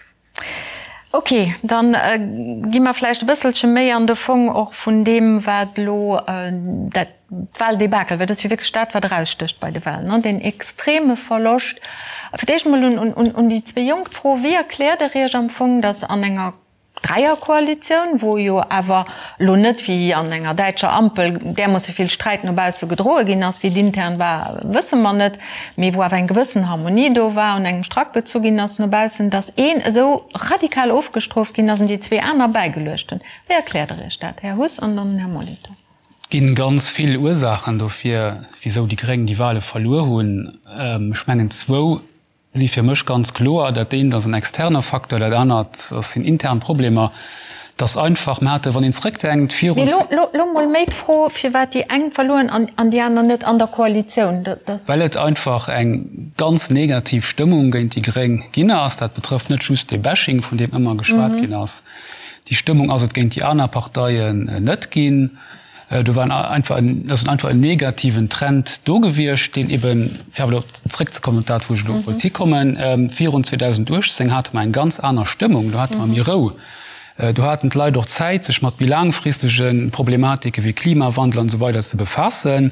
[SPEAKER 2] Ok, da gi mer vläicht e bësselche méi an de Fong och vun deem, wat elo dat Wahldebakel, well dat ass jo wierklech dat, wat erausstécht bei de Wahlen, ne, deen extreme Verloscht. Fir d'éischt emol un déi zwee Jonk d'Fro, Wéi erkläert Der Iech am Fong, datt an enger Dräierkoalitioun, wou jo awer elo net wéi an enger däitscher Ampel därmoosse vill Sträit no bausse gedroe ginn ass, wéi et intern war, wësse mer net, mee wou awer eng gewëssen Harmonie do war, un engem Strack gezu ginn ass no baussen, datt een esou radikal ofgestrooft ginn ass an déi zwee aner bäigeluecht hunn. Wéi erkläert Der Iech dat, Här Huss an dann den Här Molitor?
[SPEAKER 5] Et ginn ganz vill Ursaachen dofir, wisou déi Gréng déi Wahle verluer hunn. Ech mengen zwou Si fir mech ganz kloer. Dat eent ass en externer Facteur, dat anert ass sinn intern Problemer. Et ass einfach, mer hate, wann een zrëckdenkt,
[SPEAKER 2] virun. Mee lo, lo mol méi d'Fro, firwat déi eng verluer hunn an, an déi aner net an der Koalitioun. Dat
[SPEAKER 5] ass. Well et einfach eng ganz negativ Stëmmung géint déi Gréng ginn ass. Dat betrëfft net just dee Bashing, vun deem ëmmer geschwat ginn ass. Déi Stëmmung ass et géint déi aner Parteien net ginn. Do war einfach en, ass einfach en negativen Trend do gewiescht, deen eben, fir awer elo zrëckzekommen op dat, wou ech elo wollt hikommen, virun 2018 hate mer eng ganz aner Stëmmung, do hate mer méi Rou, do haten d'Leit och Zäit, sech mat méi laangfristege Problematike wéi Klimawandel an esou weider ze befaassen.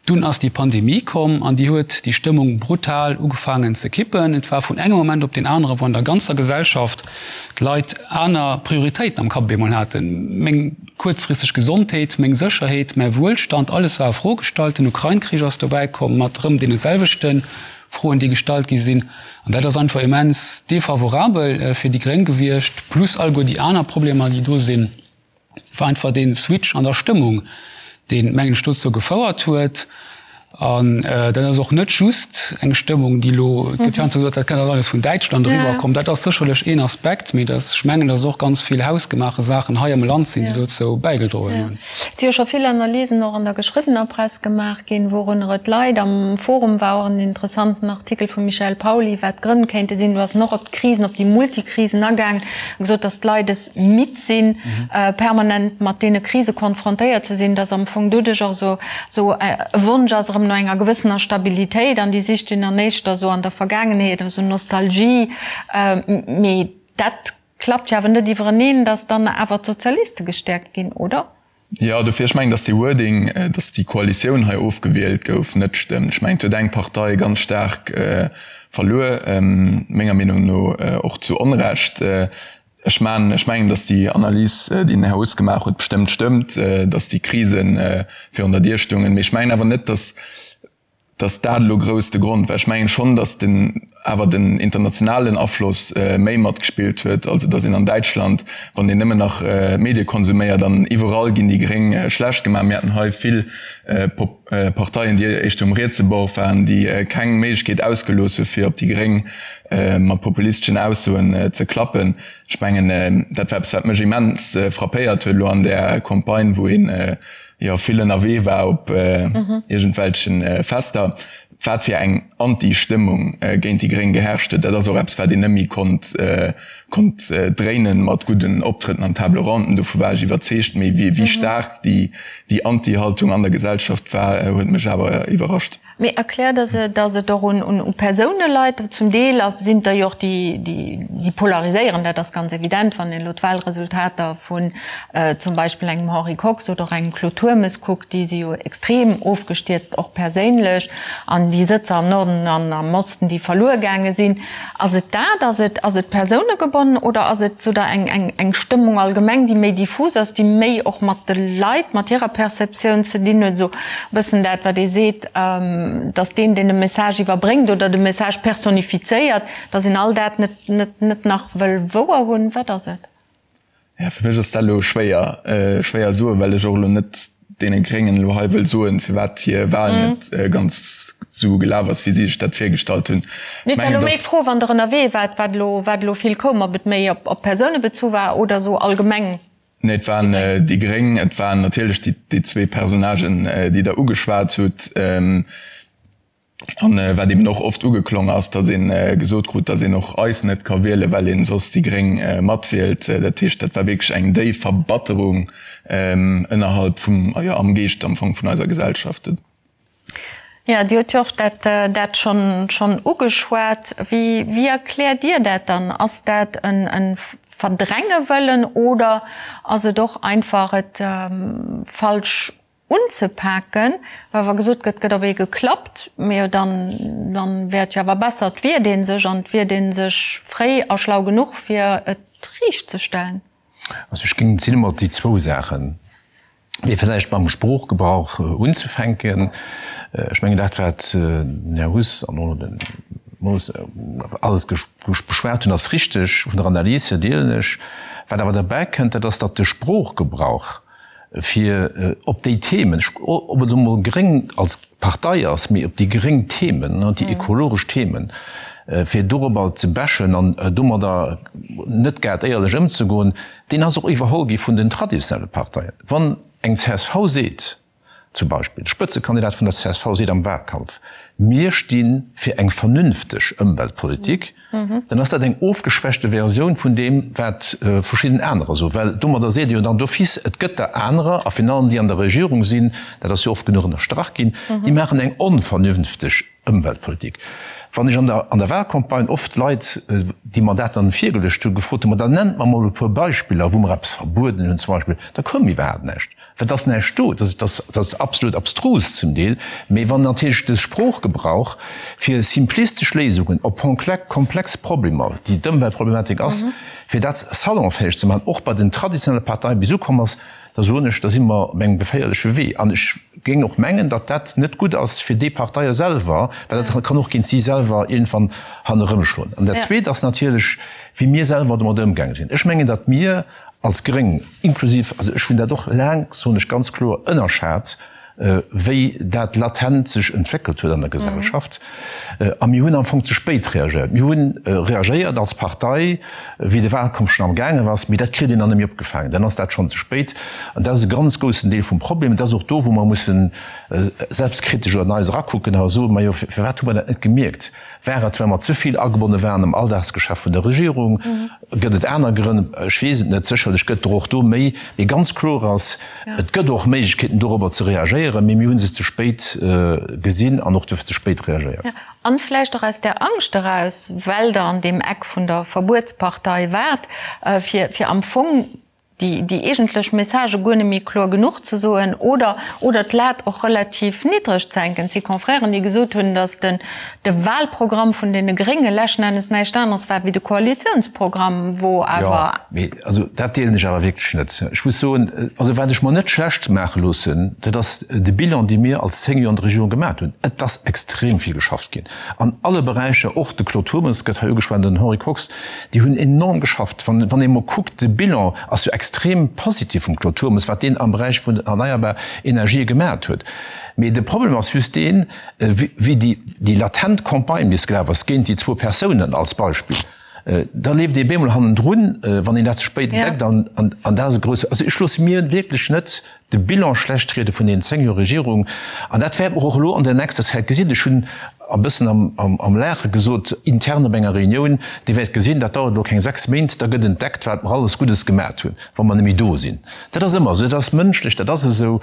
[SPEAKER 5] Dunn ass déi Pandemie komm an déi huet déi Stëmmung brutal ugefaangen ze kippen. Et war vun engem Moment op deen anere, wou an der ganzer Gesellschaft d'Leit aner Prioritéiten am Kapp op eemol haten. Meng kuerzfristeg Gesondheet, meng Sécherheet, mäi Wuelstand, alles war a Fro gestallt. Den Ukrain-Krich ass dobäi komm mat erëm deene selwechte Froen, déi gestallt gi sinn. An dat ass einfach immens defavorabel fir déi Gréng gewiescht, plus alleguer déi aner Problemer, déi do sinn. War einfach dee Switch an der Stëmmung, deen, mengen ech, dozou gefouert huet. An dat ass och net just eng Stëmmung, déi elo, et gëtt heiansdo gesot, dat kënnt alles vun Däitschland eriwwer komm. Dat ass sécherlech een Aspekt, mee dass, ech mengen, dass och ganz vill hausgemaache Saachen hei am Land sinn, déi dozou bäigedroen hunn.
[SPEAKER 2] Et si jo scho vill Analysen och an der geschriwwener Press gemaach ginn, wourunner et leit. Am Forum war och en interessanten Artikel vum Michel Pauly, wat d'Grënn kéinte sinn. Do ass en och op d'Krisen, op déi Multikrisen agaangen a gesot, dass d'Leit es midd sinn, permanent mat deene Krise konfrontéiert ze sinn, dass am Fong doduerch och esou esou e Wonsch ass erëm no enger gewëssener Stabilitéit an déi sicht een dann éischter esou an der Vergaangenheet, esou Nostalgie. Mee dat klappt jo awer net iwwereneen, datt dann awer d'Sozialiste gestäerkt ginn, oder?
[SPEAKER 6] Jo, dofir, ech mengen, datt dee Wording, datt déi Koalitioun hei ofgewielt gouf, net stëmmt. Ech mengen, et huet eng Partei ganz staark verluer, menger Meenung no och zu Onrecht. Ech man, ech mengen, datt déi Analys, déi den Här Huss gemaach huet, bestëmmt stëmmt, datt déi Krise virun der Dier stungen. Mee ech mengen awer net, datt, datt dat elo grouss de Grond war. Ech mengen schonn, datt den, awer den internationalen Afloss méi matgespillt huet. Also datt een an Däitschland, wann een nëmmen nach Medie konsuméiert, an iwwerall ginn déi Gréng schlecht gemaach. Mir haten hei vill Parteien, déi éischter um rietse Bord waren, déi keng Méiglechkeet ausgelooss hu fir op déi Gréng mat populisteschen Aussoen ze klappen. Ech mengen, dat war eppes, wat mech immens frappéiert huet elo an där Campagne, wou een jo vill ënnerwee war op iergendwelche Fester, wat fir eng Anti-Stëmmung géint déi Gréng geherrscht huet. Dat ass och eppes, wat een net méi konnt konnt dréinen mat gudden Optrëtten an Table Ronden. Dovu war ech iwwerzeegt. Mee wéi staark déi Anti-Haltung an der Gesellschaft war, huet mech awer iwwerrascht.
[SPEAKER 2] Mee erkläert Der se, datt et och un Persoune leit? Zum Deel sinn et der jo och, déi polariséieren, dat ass ganz evident, wann een elo d'Wahlresultater vun zum Beispill engem Henri Kox oder och engem Claude Turmes kuckt, déi si jo extrem ofgestierzt, och perséinlech, an déi Sëtzer am Norden an am Osten, déi verluer gaange sinn. Ass et dat? Ass et, ass et persounegebonn oder ass et sou der eng, eng, eng Stëmmung allgemeng, déi méi diffus ass, déi méi och mat de Leit, mat hirer Perceptioun ze dinn huet, esou e bëssen dat, wat ee seet, dass deen, deen de Message iwwerbréngt oder de Message personifizéiert, dass een all dat net, net, net nach wëll wouer hunn? Wat ass et?
[SPEAKER 6] Ja, fir mech ass dat elo schwéier, schwéier soen, well ech och elo net deene Gréngen elo hei wëll soen, firwat hir Wahl net ganz esou gelaf ass, wéi si sech dat virgestallt hunn.
[SPEAKER 2] Mee et war elo méi d'Fro, wann Der ënnerwee waart, wat elo, wat elo vill koum, ob et méi op Persoune bezu war oder esou allgemeng.
[SPEAKER 6] Nee, et waren déi Gréng, et waren natierlech déi zwee Personnagen, déi Der ugeschwat hutt. An wat eben och oft ugeklong ass, datt ee gesot krut, datt een och eis net ka wielen, well een soss déi Gréng matwielt. Dat heescht, dat war wierklech eng déif Verbatterung ënnerhalb vum, jo am Geescht am Fong vun eiser Gesellschaft.
[SPEAKER 2] Jo, Dir hutt jo och dat dat schonn schonn ugeschwat. Wéi wéi erkläert Dir dat dann? Ass dat en en Verdränge wëllen oder ass et och einfach et falsch unzepaken, well wa gesot gëtt, gëtt op ee geklappt, mee jo dann, dann wär et jo awer besser, et wiert ee sech an et wiert ee sech fréi a schlau genuch, fir et riicht ze stellen.
[SPEAKER 3] Also ech géing, et sinn ëmmer déi zwou Saachen, mee vläicht mam Sproochgebrauch unzefänken. Ech mengen dat, wat den Här Huss an och den Moos alles beschwat hunn, ass richteg, vun der Analys hier deelen ech. Wat awer derbäi kënnt, dat ass, datt de Sproochgebrauch, fir op déi Themen, ob et elo mol gréng als Partei ass, mee op déi gréng Themen, déi ekologesch Themen, fir dorobber ze bashen an domadder net grad éierlech ëmzegoen, deen ass och iwwerholl gi vun den traditionelle Parteien. Wann eng csv seet, Zum Beispill, de Spëtzekandidat vun der csv seet am Wahlkampf, Mir sti fir eng vernünfteg Ëmweltpolitik, dann ass dat eng ofgeschwächte Versioun vun deem, wat verschidden anerer soen. Well domadder seet e jo dann d'office, et gëtt der anerer, a virun allem déi an der Regierung sinn, dat ass jo oft genuch ënnerstrach ginn, déi maachen eng onvernünfteg Ëmweltpolitik. Wann ech an der an der Wahlcampagne oft Leit, déi mer dat dann virgeluecht hunn, gefrot hunn, ma dann nennt mer mol e puer Beispiller, wou mer eppes verbueden hunn zum Beispill, da koum iwwerhaapt näischt. Well et ass näischt do. Dat ass, dat ass absolut abstrus zum Deel. Mee wann natierlech de Sproochgebrauch fir simplistesch Léisungen op komplex Problemer, déi d'Ëmweltproblematik ass, fir dat salonfäeg ze maachen, och bei den traditionelle Parteien bis ukomm ass, da soen ech, da si mer op engem geféierleche Wee. An ech géing och mengen, datt dat net gutt ass fir déi Parteie selwer, well dat kann och géint si selwer iergendwann hannerëmschloen. An dat Zweet ass natierlech, wéi mir selwer domat ëmgaange sinn. Ech mengen, datt mir als Gréng, inklusiv, also ech hunn dat och laang, soen ech ganz kloer, ënnerschat. wéi dat latent sech entwéckelt huet an der Gesellschaft. A mir hunn am Fong ze spéit reagéiert. Mir hu reagéiert als Partei, wéi de Wahlkampf schonn amgaangen ass, mee dat kritt een dann net méi opgefaangen, dann ass dat schonn ze spéit. An dat ass e ganz groussen Deel vum Problem. Et ass och do, wou mer mussen selbstkritesch an eis erakucken a soen, Majo, firwat hu mer dat net gemierkt? War et, well mer ze vill agebonne waren am Alldagsgeschäft vun der Regierung? Gëtt et aner Grënn? Ech weess et net. Sécherlech gëtt der och do méi. Mee ganz kloer ass, Et gëtt och Méiglechkeeten, dorobber ze reagéieren, mee mir hu se ze spéit gesinn an och duerfir ze spéit reagéiert.
[SPEAKER 2] An vläicht och aus där Angscht eraus, well Der an deem Eck vun der Verbuetspartei waart, fir am Fong déi eegentlech Messagë guer net méi kloer genuch ze soen oder oder d'Lat och relativ niddreg ze hänken. Et si Confrèren, déi gesot hunn, datt den de Wahlprogramm vun deene Grénge leschten Ennes näischt aneres war wéi de Koalitiounsprogramm, wou awer.
[SPEAKER 3] Jo, mee also dat deelen ech awer wierklech net. Ech muss soen, also wat ech mer net schlecht maache loossen, dat ass de Bilan, dee mir als 10 Joer an der Regierung gemaat hunn. Et ass extrem vill geschafft ginn an alle Beräicher, och de Claude Turmes gëtt hei ugeschwat, den Henri Kox, Déi hunn enorm geschafft. Wann een emol kuckt, de Bilan ass jo extrem positiv vum Claude Turmes, wat deen am Beräich vun den erneierbar Energië gemaacht huet. Mee de Problem ass just deen, wéi déi latent Campagne bis gelaf ass géint déi zwou Persounen als Beispill, da leeft ee bemol hannendrun, wann een dat ze spéit entdeckt. An dat ass e grousse, also ech loosse mir wierklech net de Bilan schlecht riede vun deenen 10 Joer Regierung, an dat wäerte mer och elo an der nächster Zäit gesinn. Ech hunn e bëssen am Laache gesot, intern op enger Reunioun, Dir wäert gesinn, dat dauert elo keng 6 Méint, da gëtt entdeckt, wat mer alles Guddes gemat hunn, wa mer net méi do sinn. Dat ass ëmmer esou, dat ass mënschlech, dat ass esou.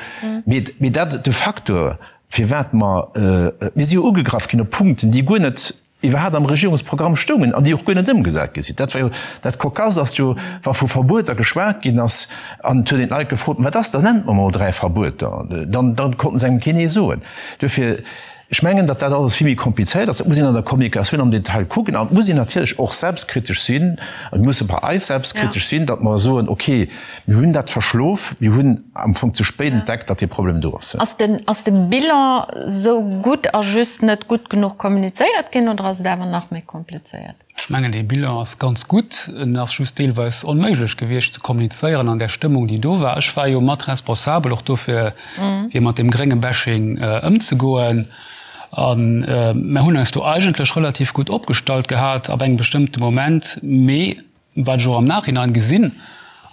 [SPEAKER 3] Mee dat, de Facteur, firwat mer, mir si jo ugegraff ginn op Punkten, déi guer net iwwerhaapt am Regierungsprogramm stoungen an déi och guer net ëmgesat gi sinn. Dat war jo dat Cocasse ass jo, wa vu Verbueter geschwat ginn ass an et huet een d'Leit gefrot, Wat ass dat, nennt mer mol 3 Verbueter, dann dann konnten se engem keen ee soen. Duerfir, ech mengen, datt dat alles vill méi komplizéiert ass. Dat muss een an der Kommunikatioun am Detail kucken an et muss een natierlech och selbstkritesch sinn, mir musse bei eis selbstkritesch sinn, datt mer soen, okay, Mir hunn dat verschlof. Mir hunn am Fong ze spéit entdeckt, datt dee Problem do ass.
[SPEAKER 2] Ass den, ass de Bilan sou gutt a just net gutt genuch kommunizéiert ginn oder ass et awer nach méi komplizéiert?
[SPEAKER 5] Ech mengen, dee Bilan ass ganz gutt. En ass just deelweis onméiglech gewiescht ze kommunizéieren an där Stëmmung, déi do war. Ech war jo mat responsabel och dofir, fir mat deem grénge Bashing ëmzegoen. A mer hunn eis do eigentlech relativ gutt opgestallt gehat ab engem bestëmmte Moment. Mee Wat ech och am Nachhinein gesinn,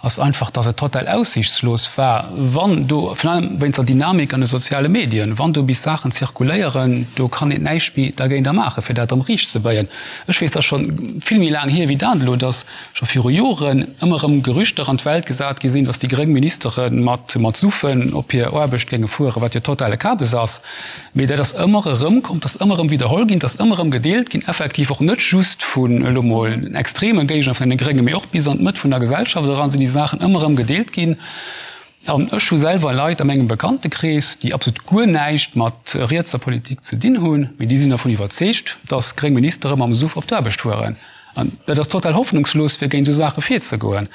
[SPEAKER 5] ass einfach, dass et total aussiichtslos war, wann do, virun allem wéinst der Dynamik an de soziale Medien, wann do bis Saachen zirkuléieren, do kann een näischt méi dergéinter maachen, fir dat erëm riicht ze béien. Ech weess, dat ass scho vill méi laang hier wéi dat elo, dass scho viru Joren ëmmer erëm Gerüchter an d'Welt gesat gi sinn, dass déi gréng Ministere mat mat Suffen op hir Aarbecht géinge fueren, wat jo totale Kabes ass. Mee dat ass ëmmer erëm komm, dat ass ëmmer erëm widderholl ginn, dat ass ëmmer erëm gedeelt ginn, effektiv och net just vun elo mol extreme Géigner vun deene Gréngen, mee och bis an d'Mëtt vun der Gesellschaft eran sinn déi Saachen ëmmer erëm gedeelt ginn. An ech hu selwer Leit a mengem Bekanntekrees, déi absolut guer näischt mat rietser Politik ze dinn hunn, mee déi sinn dervun iwwerzeegt, datt gréng Ministere mam Suff op d'Aarbecht fueren. An dat ass total hoffnungslos, fir géint esou Saache virzegoen.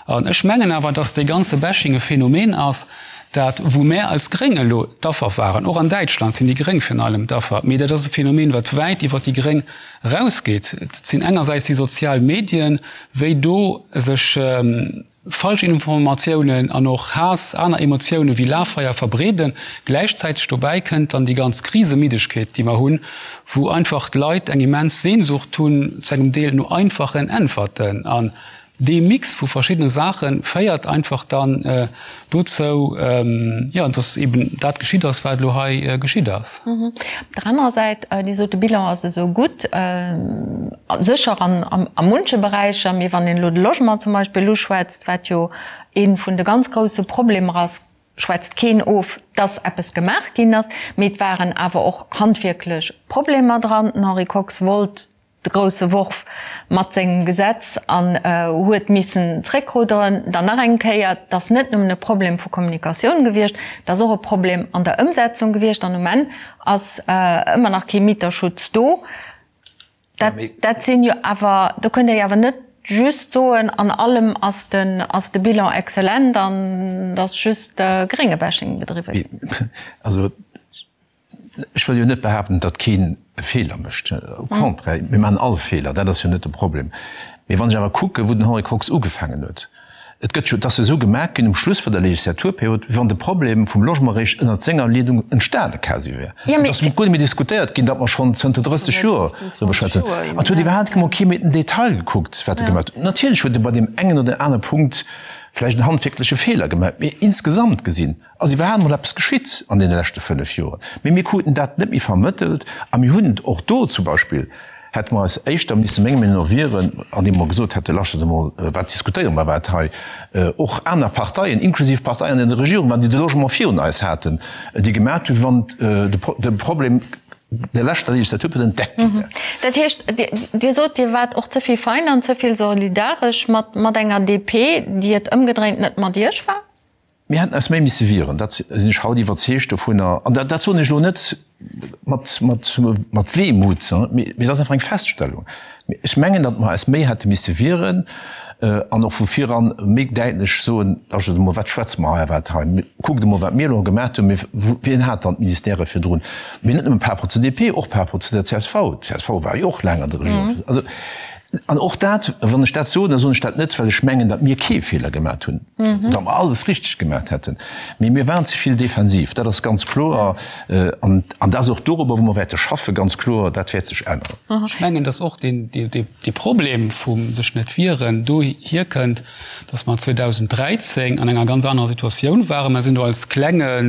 [SPEAKER 5] An ech mengen awer, datt dee ganze Bashing e Phänomen ass, dat, wou mär als Gréng elo d'Affer waren, och an Däitschland sinn déi Gréng virun allem d'Affer, mee dat ass e Phänomen, wat wäit iwwert déi Gréng erausgeet. Et sinn engersäits déi sozial Medien, wéi do sech Falschinformatiounen an och Haass, aner Emotioune wéi Lafeier verbreeden. Gläichzäiteg dobäi kënnt dann déi ganz Krisemiddegkeet, déi mer hunn, wou einfach d'Leit eng immens Sehnsucht hunn, zu engem Deel no einfachen Äntwerten. An dee Mix vu verschiddene Saache féiert einfach dann dozou, jo, dass eben dat geschitt ass, wat elo hei geschitt ass.
[SPEAKER 2] Op der anerer Säit, Dir sot, de Bilan ass esou gutt, sécher an a munche Beräicher, mee wann een elo de Logement zum Beispill uschwätzt, wat jo ee vun de ganz grousse Problemer ass, schwätzt keen of, dass eppes gemaach ginn ass, mee et waren awer och handwierklech Problemer dran. Den Henri Kox wollt de grousse Worf mat sengem Gesetz an huet missen zréckrudderen. Dann nach eng Kéier, et ass net nëmmen e Problem vu Kommunikatioun gewiescht, et ass och e Problem an der Ëmsetzung gewiescht an um Enn ass ëmmer nach kee Mieterschutz do. Dat, dat sinn jo awer, do kënnt Der jo awer net just soen, an allem ass den, ass de Bilan exzellent an et ass just Gréngebashing bedriwwe ginn.
[SPEAKER 3] Also Ech wëll jo net behaapten, datt keen e Feeler mécht. Au contraire, mir maachen all Feeler, dat ass jo net de Problem. Mee wann ech awer kucken, wou den Henri Kox ugefaangen huet. Et gëtt jo, et ass jo esou gemaach ginn um Schluss vun der Legislaturperiod, wéi wann de Problem vum Logement eréischt ënnert senger Leedung entstane quasi wär. Et ass guer net méi diskutéiert ginn, datt mer schonn zënter 30 Joer driwwer schwätzen. An et huet iwwerhaapt emol kee méi den Detail gekuckt, wat e gemaach huet. Natierlech huet e bei deem engen oder anere Punkt vläicht en handwierkleche Feeler gemaach, mee insgesamt gesinn ass iwwerhaapt emol eppes geschitt an deene leschte 5 Joren. Mee mir kruten dat net méi vermëttelt a mir hunn och do zum Beispill, hätte mer eis éischter misse menger Meenung no wieren, andeem mer gesot hätte, Laschtet emol, wat diskutéiere mer iwwerhaapt hei? Och aner Parteien, inklusiv Parteien an der Regierung waren, déi de Logement virun eis haten, déi gemaat hunn, wéi wann de Problem der leschter Legislaturperiod entdeckt gi wär.
[SPEAKER 2] Dat heescht, Dir sot, Dir waart och ze vill fein an ze vill solidaresch mat enger DP, déi et ëmgedréint net mat Iech war?
[SPEAKER 3] Mir hätten eis méi misse wieren, dat sinn ech haut iwwerzeegt dovunner. An dat soen ech elo net mat, mat, mat Wehmut, mee et ass einfach eng Feststellung. Ech mengen, datt mer eis méi hätte misse wieren an och vu viran méi däitlech soen, Lauschtert emol, wat schwätze mer hei iwwerhaapt hei? Kuckt emol, wat mir elo gemaat hunn. Mee wien hat dann d'Ministèrë virdrun? Mee net nëmme par rapport zur DP, och par rapport zu der csv. D'CSV war jo och laang an der Regierung. Also, An och dat, wann ech dat soen, da soen ech dat net, well ech mengen, datt mir kee Feeler gemaat hunn, datt mer alles richteg gemaat hätten, mee mir waren ze vill defensiv, dat ass ganz kloer. An dat ass och dorobber, wou mer wäerte schaffen, ganz kloer, dat wäert sech änneren.
[SPEAKER 5] Ech mengen, datt och dee Problem vum sech net wieren dohier kënnt, datt mer 2013 an enger ganz anerer Situatioun waren. Mer sinn do als klenge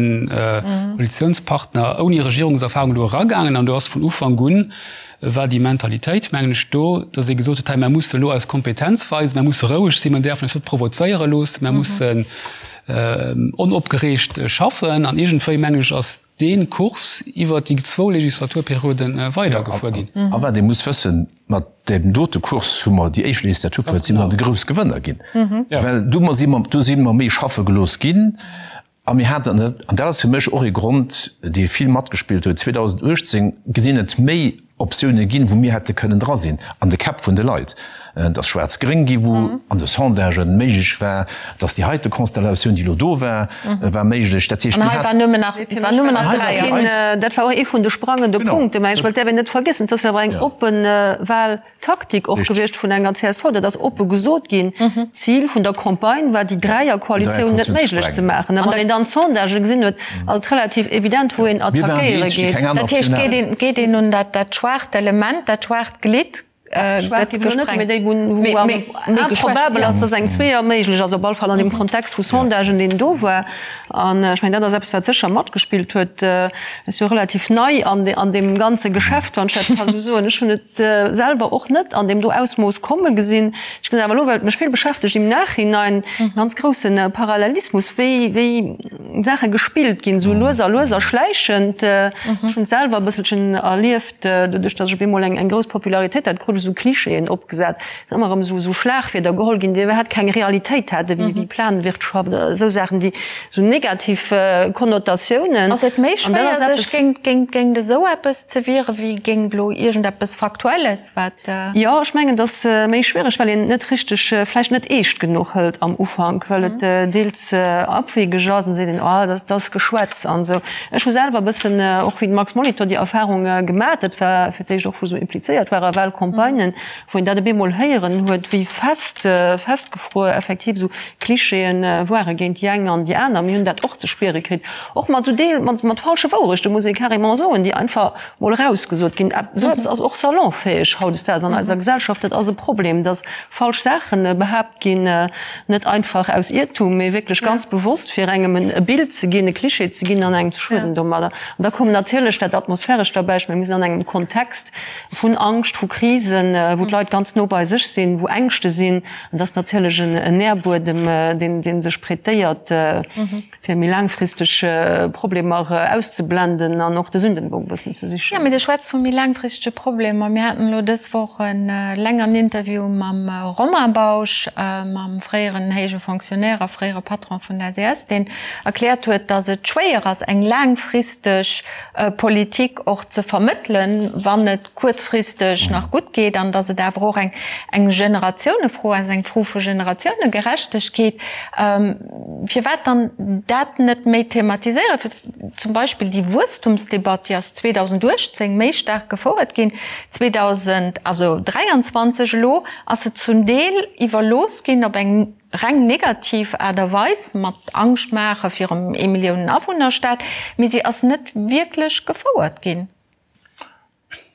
[SPEAKER 5] Koalitionspartner ouni Regierungserfahrung do eragaangen an do ass vun Ufank un war déi Mentalitéit, mengen ech, do, datt ee gesot huet, hei, mer musse elo eis Kompetenz weisen, mer musse roueg sinn, mer däerfen eis net provozéiere loossen, mer mussen onopgereegt schaffen. An iergendwéi, mengen ech, ass dee Kurs iwwert déi zwou Legislaturperioden weidergefuer ginn.
[SPEAKER 3] A wat ee muss wëssen, mat deem dote Kurs hu mer déi éischt Legislaturperiod si mer de grouss Gewënner ginn, well do si mer, do si mer méi schaffe gelooss ginn. A mir haten, an dat ass fir mech och ee Grond, dee vill matgespillt huet, 2018 gesinn et méi Optioune ginn, wou mir hätte kënnen dra sinn an de Käpp vun de Leit. Et ass schwaarz-gréng gi wou an de Sondagen méiglech war, dass déi heite Konstellatioun, déi elo do war, war méiglech.
[SPEAKER 2] Dat heescht, mir haten. An hei war nëmmen nach dräi.
[SPEAKER 4] Dat war och ee vun de sprangende Punkten. Mä ech wëllt däerf een net vergiessen, et ass jo awer eng oppe Wahl. Taktik och gewiescht vun enger csv, dat ass oppe gesot ginn. D'Zil vun der Campagne war, déi Dräierkoalitioun net méiglech ze maachen. A wann een dann d'Sondagë gesinn huet, ass et relativ evident, wou een attackéiere geet.
[SPEAKER 2] Dat heescht, geet een un dat schwaacht Element, dat schwaacht Glidd
[SPEAKER 4] gëtt gesprengt. Déi, wou am improbabel ass, datt eng Zweeër méiglech ass, op alle Fall an deem Kontext vu Sondagen, deen do war. An ech mengen, dat ass eppes, wat sécher matgespillt huet. Ech si jo relativ nei an deem ganze Geschäft, wann ech dat ka sou soen. Ech hunn et selwer och net an deem do Ausmooss komme gesinn. Ech gesinn awer elo, well et mech vill beschäftegt im Nachhinein, e ganz grousse Parallelismus, wéi wéi Saache gespillt ginn, esou lues a lues a schläichend. Ech hunn et selwer e bësselchen erlieft, doduerch datt ech op eemol eng eng grouss Popularitéit hat, krut ech esou Klischeeën opgesat, et sinn ëmmer erëm esou esou Schlagwierder geholl ginn, déi iwwerhaapt keng Realitéit haten, wéi wéi Planwirtschaft, esou Saachen, déi Sou negativ Konnotatiounen.
[SPEAKER 2] Ass et méi schwéier sech géint esou eppes ze wieren, wéi géint elo iergendeppes Faktuelles, wat.
[SPEAKER 4] Jo, ech mengen, et ass méi schwiereg, well een et net richteg, vläicht net eescht genuch hëlt am Ufank, well et deels abwegeg ass an da seet een, oh, dat ass Geschwätz an esou. Ech hu selwer e bëssen, och wéi de Max Molitor, déi Erfahrung gemat. Dat war fir d'éischt och, wou esou implizéiert war a Wahlcampagnen, wou een dat op eemol héieren huet, wéi fest, festgefruer effektiv esou Klischeeën ware géint déi eng an déi aner. Mir hunn dat och ze spiere kritt, och mat esou Deel, mat, mat falsche Wourechten, muss ee carrément soen, déi einfach mol erausgesot ginn. Esou eppes ass och salonfäeg hautdesdaags an eiser Gesellschaft. Dat ass e Problem, dass falsch Saache behaapt ginn, net einfach aus Iertum, mee wierklech ganz bewosst, fir engem e Bild ze ginn, e Klischee ze ginn an engem ze schueden domadder. An da koum natierlech dat Atmosphärescht derbäi. Ech menge mir sinn an engem Kontext, vun Angscht, vu Krisen, wou d'Leit ganz no bei sech sinn, wou Ängschte sinn. An dat ass natierlech en Nährbuedem, dee sech prêtéiert, fir méi laangfristeg Problemer auszeblenden an och de Sündenbock e bëssen ze sichen.
[SPEAKER 2] Jo, mee Dir schwätzt vu méi laangfristege Problemer. Mir haten elo dës Woch e längeren Interview mam Romain Bausch, mam fréieren héije Fonctionnaire a fréiere Patron vun der SES, deen erkläert huet, datt et schwéier ass, eng laangfristeg Politik och ze vermëttelen, wann et kuerzfristeg nach gutt geet, an datt et awer och eng eng Generatiounefro ass, eng Fro vu Generatiounegerechtegkeet. Firwat dann dat net méi thematiséieren? Fir zum Beispill déi Wuesstumsdebatt, déi ass 2018 méi staark gefouert ginn, 2000, also 23 elo ass se zum Deel iwwerlooss ginn op eng. reng negativ Aart a Weis, mat Angscht maache virum Eemilliounen-Awunner-Staat, mee si ass net wierklech gefouert ginn.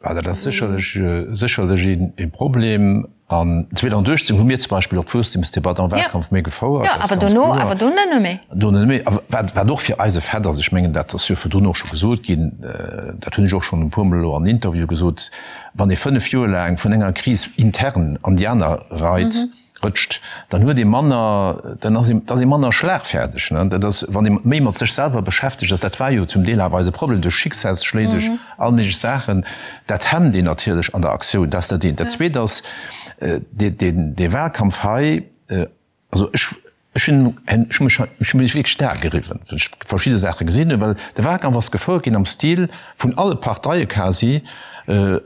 [SPEAKER 3] Dat ass sécherlech, sécherlech ee Problem. An 2018 hu mir zum Beispill och d'Wuesstemsdebatt am Wahlkampf méi gefouert.
[SPEAKER 2] Jo, awer dono, awer dono net méi.
[SPEAKER 3] Dono net méi. A wat, wat och fir eis e Fait ass, ech mengen, dat ass jo virdrun och scho gesot ginn, dat hunn ech och schonn e puermol elo an Interviewe gesot, Wann ee 5 Joer laang vun enger Kris intern an déi aner reit, rëtscht, dann huet ee manner, dann ass ee, da ass ee manner schlagfäerdeg, ne. Dat ass, wann ee méi mat sech selwer beschäftegt ass, dat war jo zum Deel awer eise Problem, duerch Schicksalsschléi, duerch all méiglech Saachen, dat hemmt een natierlech an der Aktioun. Dat ass dat eent. Dat Zweet ass, dee, deen, dee Wahlkampf hei, also ech, ech hunn, ech hu mech, ech hu mech wierklech d'Ae geriwwen, wéi ech verschidde Saache gesinn hunn, well de Wahlkampf ass gefouert ginn am Stil vun alle Parteie quasi,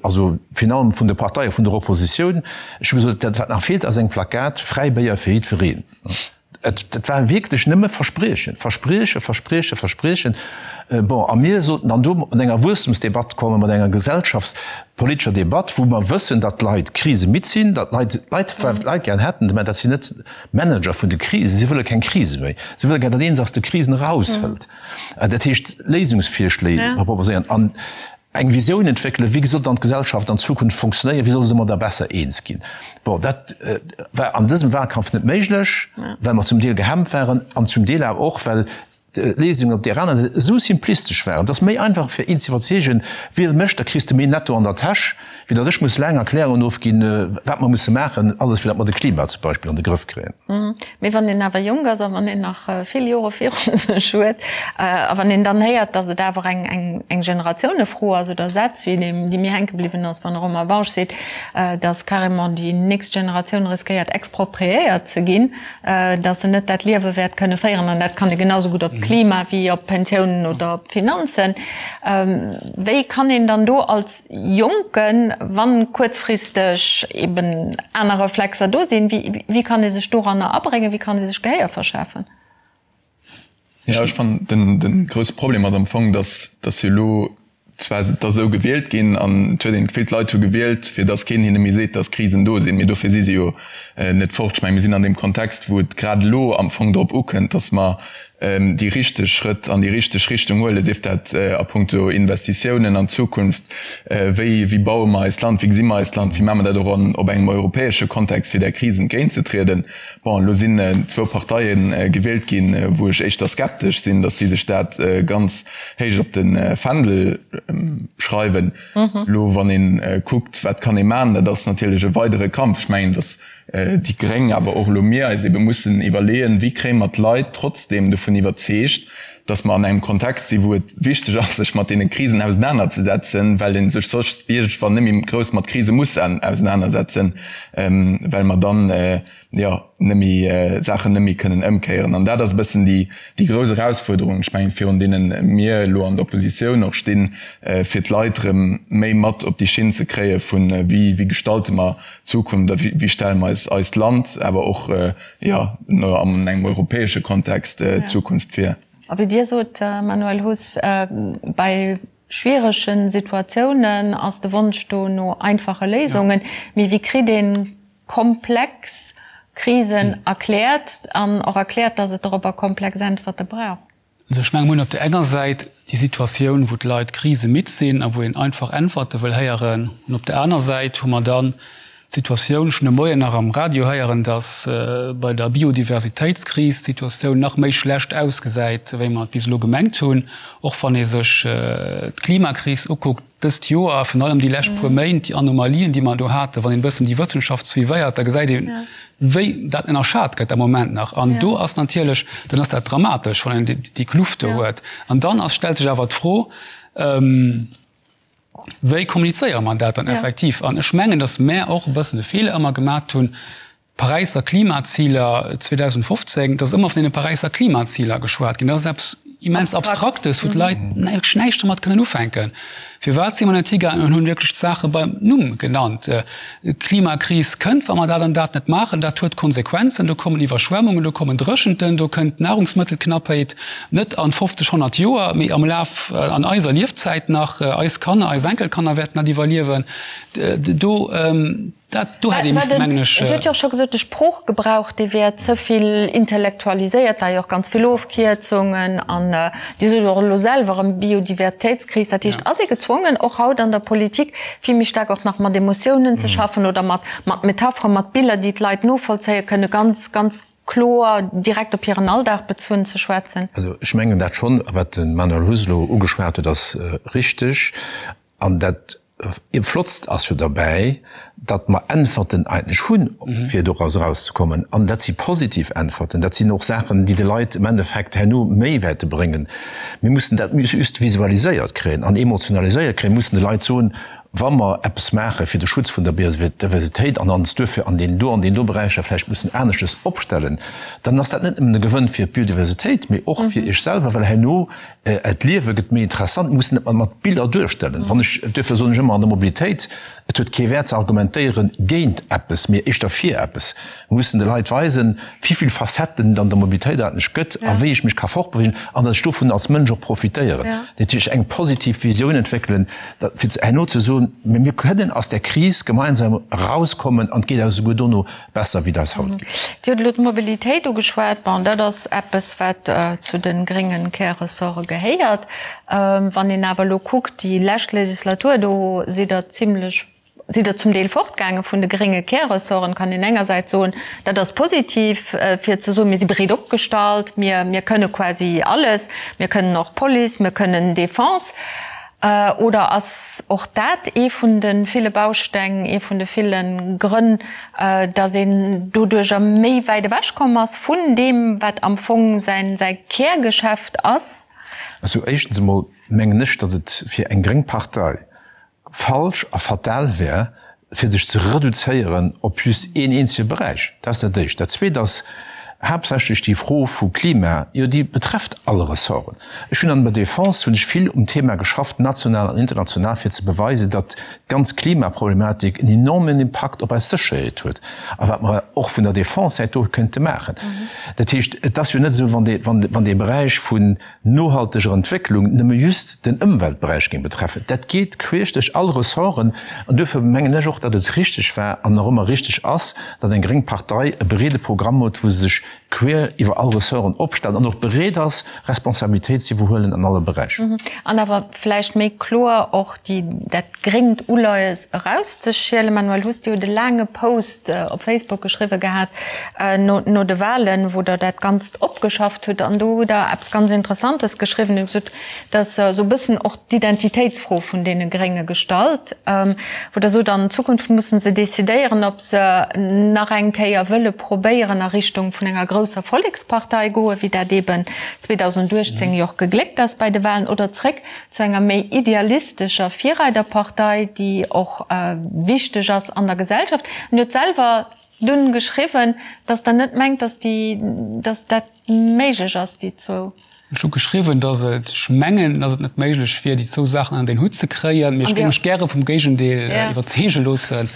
[SPEAKER 3] also virun allem vun de Parteie vun der Oppositioun. Ech hu gesot, dat wat nach feelt ass eng Plakat Fräi Béier fir jiddwereen. Et war wierklech nëmme Verspriechen, Verspriechen, Verspriechen, Verspriechen. Bon, a mir sollten dann do mat enger Wuesstemsdebatt kommen, mat enger gesellschaftspolitescher Debatt, wou mer wëssen, datt d'Leit krisemidd sinn, datt d'Leit, d'Leit, wat d'Leit gären hätten, mä dat sinn net d'Manager vun de Krisen, si wëlle keng Krise méi, si wëlle gär, datt ee se aus de Krisen eraushëlt. Dat heescht, Léisungsvirschléi proposéieren an eng Visioun entwéckelen, wéi soll dann d'Gesellschaft an Zukunft funktionéieren, wéi soll se domadder besser eens ginn. Bon, dat war an dësem Wahlkampf net méiglech, well mer zum Deel gehemmt waren an zum Deel awer och, well d'Léisungen op där aner Säit esou simplistesch waren. Et ass méi einfach fir een ze iwwerzeegen, wiel mech, da kriss de méi netto an der Täsch, wéi datt ech muss laang Erklärungen ofginn, wat mer musse maachen, alles fir datt mer de Klima zum Beispill an de Grëff kréien.
[SPEAKER 2] Mee wann een awer jonk ass a wann een nach vill Jore viru sech huet a wann een dann héiert, datt et awer eng eng Generatiounefro ass oder Sätz wéi deem, dee mir hänke bliwwen ass, wann de Romain Bausch seet, datt carrément déi nächst Generatioun riskéiert expropriéiert ze ginn, datt se net dat Liewe wäert kënne féieren, an dat kann ee genau sou gutt op d'Klima wéi op d'Pensiounen oder op d'Finanzen, wéi kann een dann do als Jonken, wann kuerzfristeg eben aner Reflexer do sinn, wéi kann ee sech doranner abréngen, wéi kann ee sech Gehéier verschafen?
[SPEAKER 6] Jo, ech fannen, den, den grousse Problem ass am Fong, dass, dass jo elo zwar et ass esou gewielt ginn an et huet een d'Gefill, d'Leit hu gewielt, fir dass keen hinne méi seet, dass Krisen do sinn, mee dofir si se jo net fort. Ech menge mir sinn an deem Kontext, wou et grad elo am Fong drop ukënnt, dass mer déi richteg Schrëtt an déi richteg Richtung huelen, sief dat a puncto Investitiounen an d'Zukunft, wéi wéi baue mer eist Land, wéi gesi mer eist Land, wéi maache mer dat och an op engem europäesche Kontext, fir där Kris entgéintzetrieden. Bon, elo sinn zwou Parteie gewielt ginn, wou ech éischter skeptesch sinn, datt déi sech dat ganz héich op de Fändel schreiwen. Elo wann ee kuckt, wat kann ee maachen, dat ass natierlech e weidere Kampf. Ech mengen, datt déi Gréng, awer och elo mir eis ebe mussen iwwerleeën, wéi kréie mer d'Leit trotzdeem dovun iwwerzeegt, datt mer an engem Kontext sinn, wou et wichteg ass, sech mat deene Krisen ausenanerzesetzen, well ee sech soss iergendwann net méi grouss mat Krise muss ausenanersetzen, well mer dann, jo, net méi Saachen net méi kënnen ëmkéieren. An dat ass e bëssen déi, déi grouss Erausfuerderung, ech mengen, virun deene mir elo an der Oppositioun och stinn, fir d'Leit erëm méi mat op déi Schinn ze kréie vun, wéi, wéi gestalte mer d'Zukunft a wéi, wéi stelle mer eis eist Land, awer och, jo, an engem europäesche Kontext d'Zukunft vir.
[SPEAKER 2] A wéi Dir sot, Manuel Huss, bei schwierege Situatiounen ass de Wonsch do no einfache Léisungen. Mee wéi kritt een komplex Krisen erkläert an och erkläert, dass et dorobber komplex Äntwerte brauch.
[SPEAKER 5] Also ech menge mir hunn op där enger Säit déi Situatioun, wou d'Leit krisemidd sinn a wou een einfach Äntwerte wëll héieren. An op där aner Säit hu mer dann d'Situatioun, ech hunn de Moien nach am Radio héieren, dass bei der Biodiversitéitskris d'Situatioun nach méi schlecht ausgesäit, wéi mer et bis elo gemengt hunn. Och wann ee sech d'Klimakris ukuckt, Dëst Joer, virun allem déi lescht puer Méint, déi Anomalien, déi mer do haten, wann een e bëssen déi Wëssenschaft suivéiert, da gesäit een, wéi dat ënnerschat gëtt am Moment nach. An do ass natierlech, dann ass dat dramatesch, wann een déi Kluft do huet. An dann ass, stellt sech awer d'Fro, Wéi kommunizéiere mer dat dann effektiv? An ech mengen, datt mär och e bëssen de Feeler ëmmer gemat hunn, D'Paräisser Klimaziler 2015, et ass ëmmer vun deene Paräisser Klimaziler geschwat ginn. Dat ass eppes immens Abstraktes, wou d'Leit wierklech näischt domat kënnen ufänken. Firwat si mer net higaangen an hunn wierklech d'Saache beim Numm genannt? D'Klimakris kënnt, wa mer dat an dat net maachen. Dat huet Konsequenzen. Do kommen Iwwerschwemmungen, do kommen Dréchenten, do kënnt Nahrungsmëttelknappheit, net an 50, 100 Joer, mee am Laf an eiser Liefzäit nach. Eis Kanner, eis Enkelkanner wäerten dat iwwerliewen. Do. Dat do hätt ee misste, mengen ech.
[SPEAKER 2] Dir hutt jo och scho gesot, de Sproochgebrauch, dee wär ze vill intellektualiséiert, war jo och ganz vill Ofkierzungen an Dir sot och elo selwer erëm Biodivertéitskris. Dat heescht, ass ee gezwongen, och haut an der Politik vill méi staark och nach mat Emotiounen ze schaffen oder mat Metapheren, mat Biller, déi d'Leit novollzéie kënnen, ganz, ganz kloer direkt op hiren Alldag bezunn ze schwätzen?
[SPEAKER 3] Also ech mengen dat schonn, a wat de Manuel Huss elo ugeschwat huet, ass richteg. An dat Flottst ass jo derbäi, datt mer Äntwerten eigentlech hunn, fir doraus erauszekommen. An dat si positiv Äntwerten. Dat sinn och Saachen, déi de Leit im Endeffekt herno méi wäerte bréngen. Mir mussen dat just visualiséiert kréien an emotionaliséiert kréien. Mir mussen de Leit soen, wa mer eppes maache fir de Schutz vun der Biodiversitéit an ons duerfir an deenen do an deenen do Beräicher vläicht mussen aneschtes opstellen, dann ass dat net nëmmen e Gewënn fir d'Biodiversitéit, mee och fir Iech selwer, well herno D'Liewe gëtt méi interessant, mir mussen et mat Biller duerstellen. Wann ech, duerfir soen ech ëmmer an der Mobilitéit, et huet kee Wäert ze argumentéieren géint eppes, mee éischter fir eppes. Mir mussen de Leit weisen, wéi vill Facetten et an der Mobilitéit eigentlech gëtt a wéi ech mech ka fortbewegen an datt ech dovun als Mënsch och profitéieren. Dat heescht, eng positiv Visioun entwéckelen, fir herno ze soen, mir kënnen aus där Kris gemeinsam erauskommen an et geet eis esouguer dono besser wéi et eis haut geet.
[SPEAKER 2] Dir hutt elo d'Mobilitéit ugeschwat. Bon, dat ass eppes, wat zu de grénge Kärressorte gehéiert. Wann een awer elo kuckt, déi lescht Legislatur, do sidd Der zimlech, sidd Der zum Deel fortgaange vun de grénge Kärressorten. Kann een engersäits soen, dat ass positiv, fir ze soen, mir si breet opgestallt, mir, mir kënne quasi alles, mir kënnen och Police, mir kënnen Defense. Oder ass och dat ee vun de ville Bausteng, ee vun de ville Grënn, datt een doduercher méi wäit ewech komm ass vun deem, wat am Fong säi Kärgeschäft ass?
[SPEAKER 3] Also éischtens emol mengen ech, datt et fir eng gréng Partei falsch a fatal wär, fir sech ze reduzéieren op just een eenzege Beräich. Dat ass dat Éischt. Dat Zweet ass haaptsächlech déi Fro vu Klima, jo déi betrefft all Ressorten. Ech hunn an der Defense hunn ech vill um Thema geschafft, national an international, fir ze beweisen, datt d'ganz Klimaproblematik en enormen Impakt op eis Sécherheet huet a wat mer och vun der Defense-Säit do kënnte maachen. Dat heescht, et ass jo net esou, wann dee Beräich vun nohalteger Entwécklung nëmme just den Ëmweltberäich géing betreffen. Dat geet queesch duerch all Ressorten. An duerfir mengen ech och, datt et richtig war an nach ëmmer richtig ass, datt eng gréng Partei e breede Programm huet, wou se sech queer iwwer all Ressorten opstellt an och bereet ass, Responsabilitéit ze iwwerhuelen an alle Beräicher.
[SPEAKER 2] An awer vläicht méi kloer och déi, dat gréngt Uleies erauszeschielen. Manuel Huss, Dir hutt e laange Post op Facebook geschriwwe gehat no de Wahlen, wou Der dat Ganzt opgeschafft hutt. An do hutt Der eppes ganz Interessantes geschriwwen. Dir hutt gesot, dass esou e bëssen och d'Identitéitsfro vun deene Grénge gestallt, wou Der sot, an Zukunft musse se decidéieren, ob se nach eng Kéier wëlle probéieren a Richtung vun enger grousser Vollekspartei goen, wéi dat eeben 2018 jo och gegléckt ass bei de Wahlen, oder zréck zu enger méi idealistescher Virreiderpartei, déi och wichteg ass an der Gesellschaft. An Dir hutt selwer dunn geschriwwen, datt Der net mengt, datt déi, datt dat méiglech ass, déi zwou.
[SPEAKER 5] Ech hu geschriwwen, datt et, ech mengen, datt et net méiglech wier, déi zwou Saachen ënnert een Hutt ze kréien, mee ech géing mech gäre vum Géigendeel iwwerzeege loossen.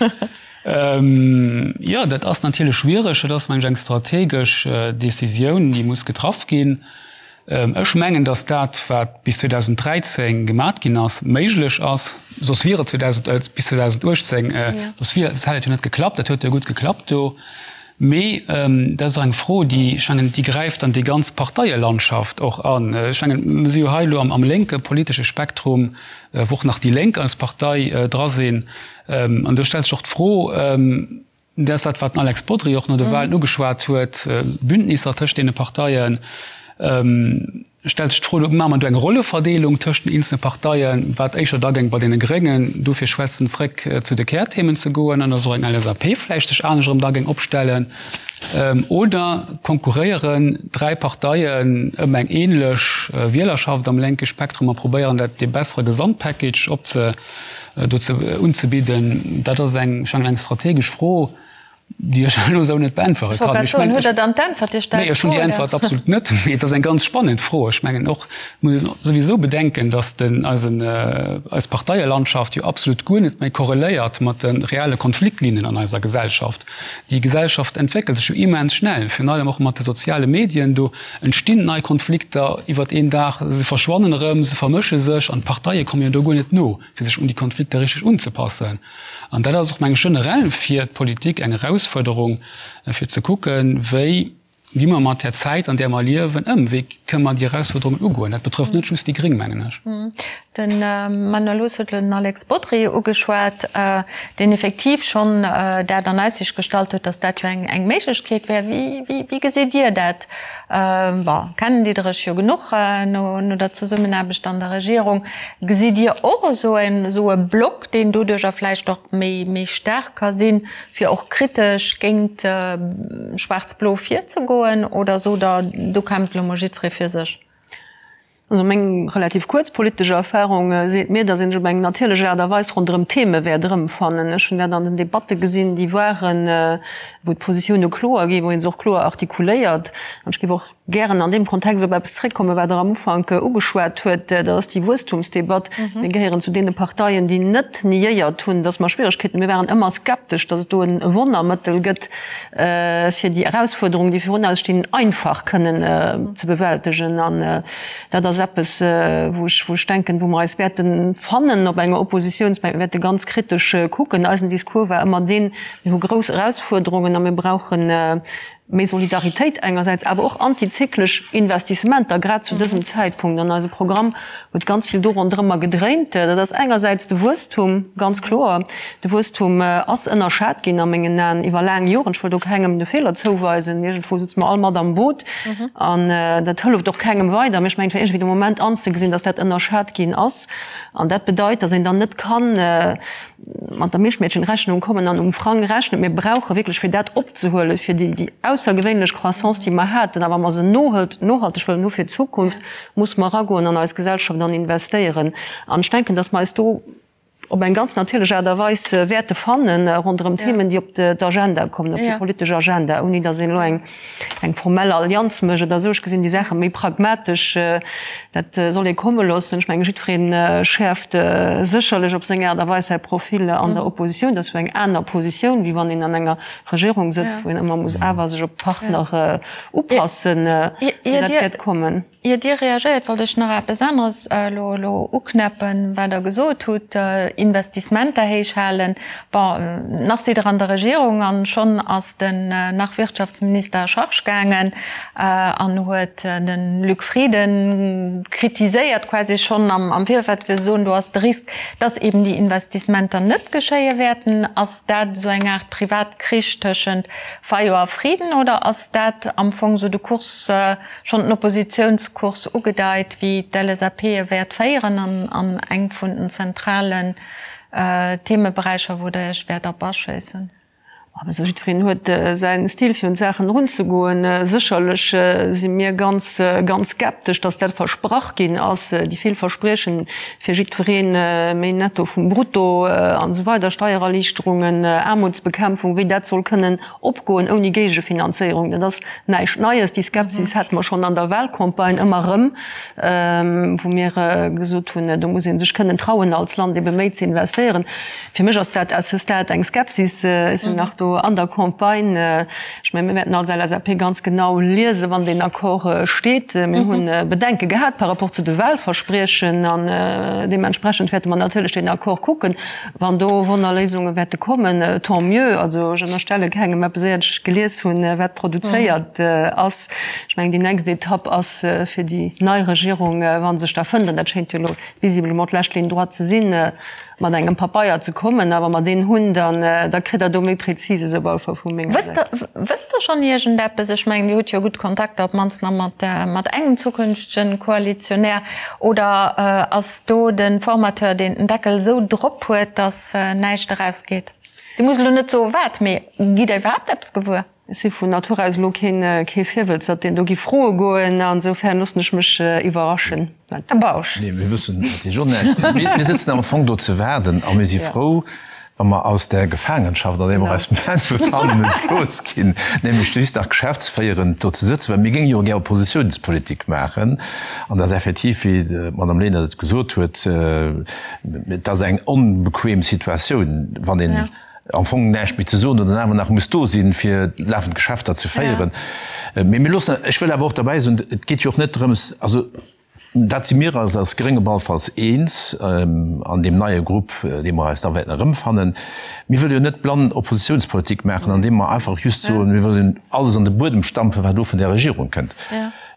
[SPEAKER 5] Jo, dat ass natierlech schwiereg. Dat ass, meng ech, eng strategesch Decisioun, déi muss getraff ginn. Ech mengen, datt dat, wat bis 2013 gemat ginn ass, méiglech ass. Soss wier et 2000, bis 2018, soss wier, soss hätt et jo net geklappt. Dat huet jo gutt geklappt do. Mee dat ass och eng Fro, déi, ech mengen, déi gräift an déi ganz Parteielandschaft och an. Ech mengen, mir si jo hei elo am lénke politesche Spektrum, wou och nach déi Lénk als Partei dra sinn. An do stellt sech och d'Fro, Dat ass dat, wat den Alex Bodry och no de Wahlen ugeschwat huet, Bündnisser tëscht deene Parteien. Stellt sech d'Fro, maache mer do eng Rolleverdeelung tëscht den eenzele Parteien, wat éischer da géing bei deene Gréngen dofir schwätzen, zréck zu de Kärthemen ze goen an datt och eng LSAP vläicht sech anescht erëm da géing opstellen. Oder konkurréieren dräi Parteien ëm eng änlech Wielerschaft am lénke Spektrum a probéieren dat dee bessere Gesamtpackage opze do ze unzebidden, dat ass eng, ech mengen, eng strategesch Fro. Déi ech elo esou net beäntwere
[SPEAKER 2] kann. Ech mengen, hutt Der dann d'Äntwert? Dir stellt
[SPEAKER 5] d'Fro, oder? Nee, ech hunn déi Äntwert absolut net. Mee et ass eng ganz spannend Fro. Ech mengen och, muss een souwisou bedenken, datt den, eisen, eis Parteielandschaft jo absolut guer net méi korreléiert mat de reelle Konfliktlinnen an eiser Gesellschaft. Déi Gesellschaft entwéckelt sech jo immens schnell, virun allem och mat de soziale Medien. Do entstinn nei Konflikter iwwert een Dag, se verschwannen erëm, se vermësche sech an d'Parteie komme jo do guer net no, fir sech un déi Konflikter richteg unzepassen. An dat ass och, meng ech, generell fir d'Politik eng Erausfuerderung, fir ze kucken, wéi gi mer mat där Zäit, an där mer liewen, ëm, wéi kënne mer déi Erausfuerderungen ugoen. Dat betrëfft net just déi Gréng, mengen ech.
[SPEAKER 2] De Manuel Huss huet elo den Alex Bodry ugeschwat, deen effektiv schonn dat an Aussicht gestallt huet, datt dat jo eng Méiglechkeet wär. Wéi gesitt Dir dat? Bon, kennen Dir Iech jo genuch no der Zesummenaarbecht an der Regierung. Gesitt Dir och esou e Block, deen doduercher vläicht och méi staark ka sinn, fir och kritesch géint Schwaarz-Blo virzegoen? Oder sot Der, do kämpft elo mol jiddweree fir sech?
[SPEAKER 4] Also meng relativ kuerz politesch Erfahrung seet mir, datt een sech op eng natierlech Aart a Weis ronderëm Theme wäert erëmfannen. Ech hunn dat an den Debatte gesinn, déi waren, wou d'Positioune kloer ginn, wou ee se och kloer artikuléiert. An ech géif och gären an deem Kontext op eppes zréckkommen, wat Der am Ufank ugeschwat huet, dat ass déi Wuesstumsdebatt. Mir gehéieren zu deene Parteien, déi net niéiert hunn, datt mer Schwieregkeeten hunn. Mir waren ëmmer skeptesch, datt et do e Wonnermëttel gëtt, fir déi Erausfuerderungen, déi virun eis stinn, einfach kënnen ze bewältegen. An dat ass eppes, wou ech, wou ech denken, wou mer eis wäerte fannen op enger Oppositionsbänk. Mir wäerte ganz kritesch kucken. Eisen Discours war ëmmer deen, Mir hu grouss Erausfuerderungen a mir brauchen méi Solidaritéit engersäits, awer och antizyklesch Investissementer, grad zu dësem Zäitpunkt. An eise Programm huet ganz vill do ronderëmmer gedréint. Dat ass engersäits de Wuesstum, ganz kloer. De Wuesstum ass ënnerschat ginn a mengen Aen iwwer laang Joren. Ech wëll do kengem de Feeler zouweisen. Iergendwou sëtze mer all mat am Boot an dat hëlleft och kengem weider. Mee ech mengen, et war iergendwéi de Moment anzegesinn, datt dat ënnerschat ginn ass. An dat bedeit, datt een dann net kann mat der Milchmädchenrechnung kommen an um Frang rechnen. Mir brauche wierklech, fir dat opzehuelen, fir déi aussergewéinlech Croissance, déi mer haten, a wa mer se nohalteg wëllen hu fir d'Zukunft, muss mer eragoen an eis Gesellschaft an investéieren. An ech denken, datt mer eis do op eng ganz natierlech Aart a Weis wäerte fannen ronderëm Themen, déi op d'Agenda kommen, op déi politesch Agenda, ouni datt een elo eng eng formell Allianz mécht oder esou. Ech gesinn déi Saache méi pragmatesch. Dat soll ee komme loossen. Ech mengen, jiddweree schäerft sécherlech op seng Aart a Weis säi Profil an der Oppositioun. Dat ass jo eng aner Positioun, wéi wann een an enger Regierung sëtzt, wou een ëmmer muss awer sech op d'Partner upassen. Mee dat wäert kommen.
[SPEAKER 2] Ier Dir reagéiert, wollt ech nach eppes aneres elo elo uknäppen, wat Der gesot hutt, Investissementer héich halen. Bon, nach sidd Der an der Regierung an schonn ass den nach Wirtschaftsminister à charge gaangen an huet de Luc Frieden kritiséiert, quasi schonn am Virfeld, fir ze soen, do ass de Risk, dass eben déi Investissementer net geschéie wäerten. Ass dat esou eng Aart Privatkrich tëschent Fayot a Frieden oder ass dat am Fong esou de Kurs, schonn den Oppositionskurs ugedeit, wéi d'LSAP e wäert féieren an an eng vun den zentralen Themeberäicher, wou Der Iech wäert op aschéissen?
[SPEAKER 4] Also jiddwereen huet säin Stil fir un d'Saachen erunzegoen. Sécherlech si mir ganz, ganz skeptesch, datt dat versprach ginn ass, déi vill Verspriechen fir jiddweree méi Netto vum Brutto an esou weider, Steiererliichterungen, Aarmutsbekämpfung, wéi dat soll kënnen Opgoen ouni Géigefinanzéierung, dat ass näischt Neies. Déi Skepsis hate mer schonn an der Wahlcampagne ëmmer erëm, wou mir gesot hunn, do muss ee sech kënnen trauen, als Land ebe méi ze investéieren. Fir mech ass dat à ce stade eng Skepsis. Ech sinn nach do an der Campagne. Ech mengen, mir wäerten als LSAP ganz genau liesen, wann deen Accord steet. Mir hu Bedenke gehat par rapport zu de Wahlverspriechen an deementsprechend wäerte mer natierlech deen Accord kucken. Wann do Wonnerléisunge wäerte kommen, tant mieux. Also ech ënnerstelle kengem eppes, éiert ech gelies hunn, wat produzéiert ass. Ech mengen, déi nächst Etapp ass fir déi nei Regierung, wa se sech da fënnt, an dat schéint jo elo visiblement d'lescht Ligne droite ze sinn, mat engem Papeier ze kommen. A wa mer deen hunn, dann da kritt Der do méi Präzises op alle Fall vu menger Säit.
[SPEAKER 2] Wësst Der schonn iergendeppes? Ech mengen, Dir hutt jo gutt Kontakter, op d'mannst nach mat engem zukünftegen Koalitionär. Oder ass do de Formateur, deen den Deckel esou drop huet, datt näischt erausgeet? Dir musst elo net soe wat, mee gitt Der iwwerhaapt eppes gewuer?
[SPEAKER 4] Ech si vun Natur aus elo kee Virwëlzert, deen do gi froe goen. Ansoufern loossen ech mech iwwerraschen.
[SPEAKER 2] Här Bausch.
[SPEAKER 3] Nee, mir wëssen natierlech och näischt. Mir sëtzen am Fong do ze waarden a mir si frou, Wa mer aus där Gefaangenschaft, an där mer eis moment befannen, entlooss ginn, nämlech just nach geschäftsféierend do ze sëtzen, well mir géinge jo gär Oppositionspolitik maachen, an dat ass effektiv, wéi d'Madame Lenert et gesot huet, et ass eng onbequem Situatioun, wann een am Fong näischt méi ze soen huet an awer nach muss do sinn, fir lafend Geschäfter ze féieren. Mee mir loossen, ech wëll awer och derbäi soen, et geet jo och net drëms, also Dat si mir eis als Gréng op alle Falls eens an deem neie Grupp, dee mer eis da wäerten erëmfannen. Mir wëlle jo net blann Oppositionspolitik maachen, andeem mer einfach just soen, mir wëllen alles an de Buedem stampfen, wat elo vun där Regierung kënnt.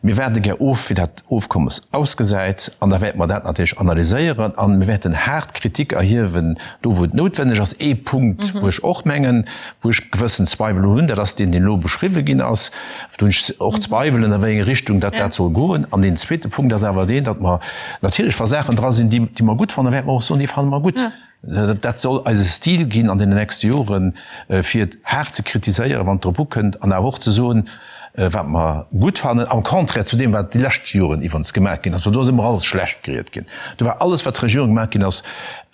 [SPEAKER 3] Mir waarde gär of, wéi dat Ofkommes ausgesäit, an da wäerte mer dat natierlech analyséieren a mir wäerten haart Kritik erhiewen, do wou et noutwenneg ass. Ee Punkt, wou ech och mengen, wou ech gewëssen Zweiwel hunn, dat ass deen, deen elo beschriwwen ginn ass, Do hunn ech och Zweiwelen, a wéi eng Richtung dat dat soll goen. An deen zweete Punkt ass awer deen, datt mer natierlech, wa Saachen dra sinn, déi mer gutt fannen, wäerte mer och soen, déi fanne mer gutt. Dat soll eise Stil ginn an deenen nächste Joren, fir haart ze kritiséieren, wann et drop ukënnt, an awer och ze soen, wat mer gutt fannen, am Contraire zu deem, wat déi lescht Joren iwwerens gemaach ginn ass. Well do ass ëmmer alles schlecht geriet ginn. Do war alles, wat d'Regierung gemaach ginn ass,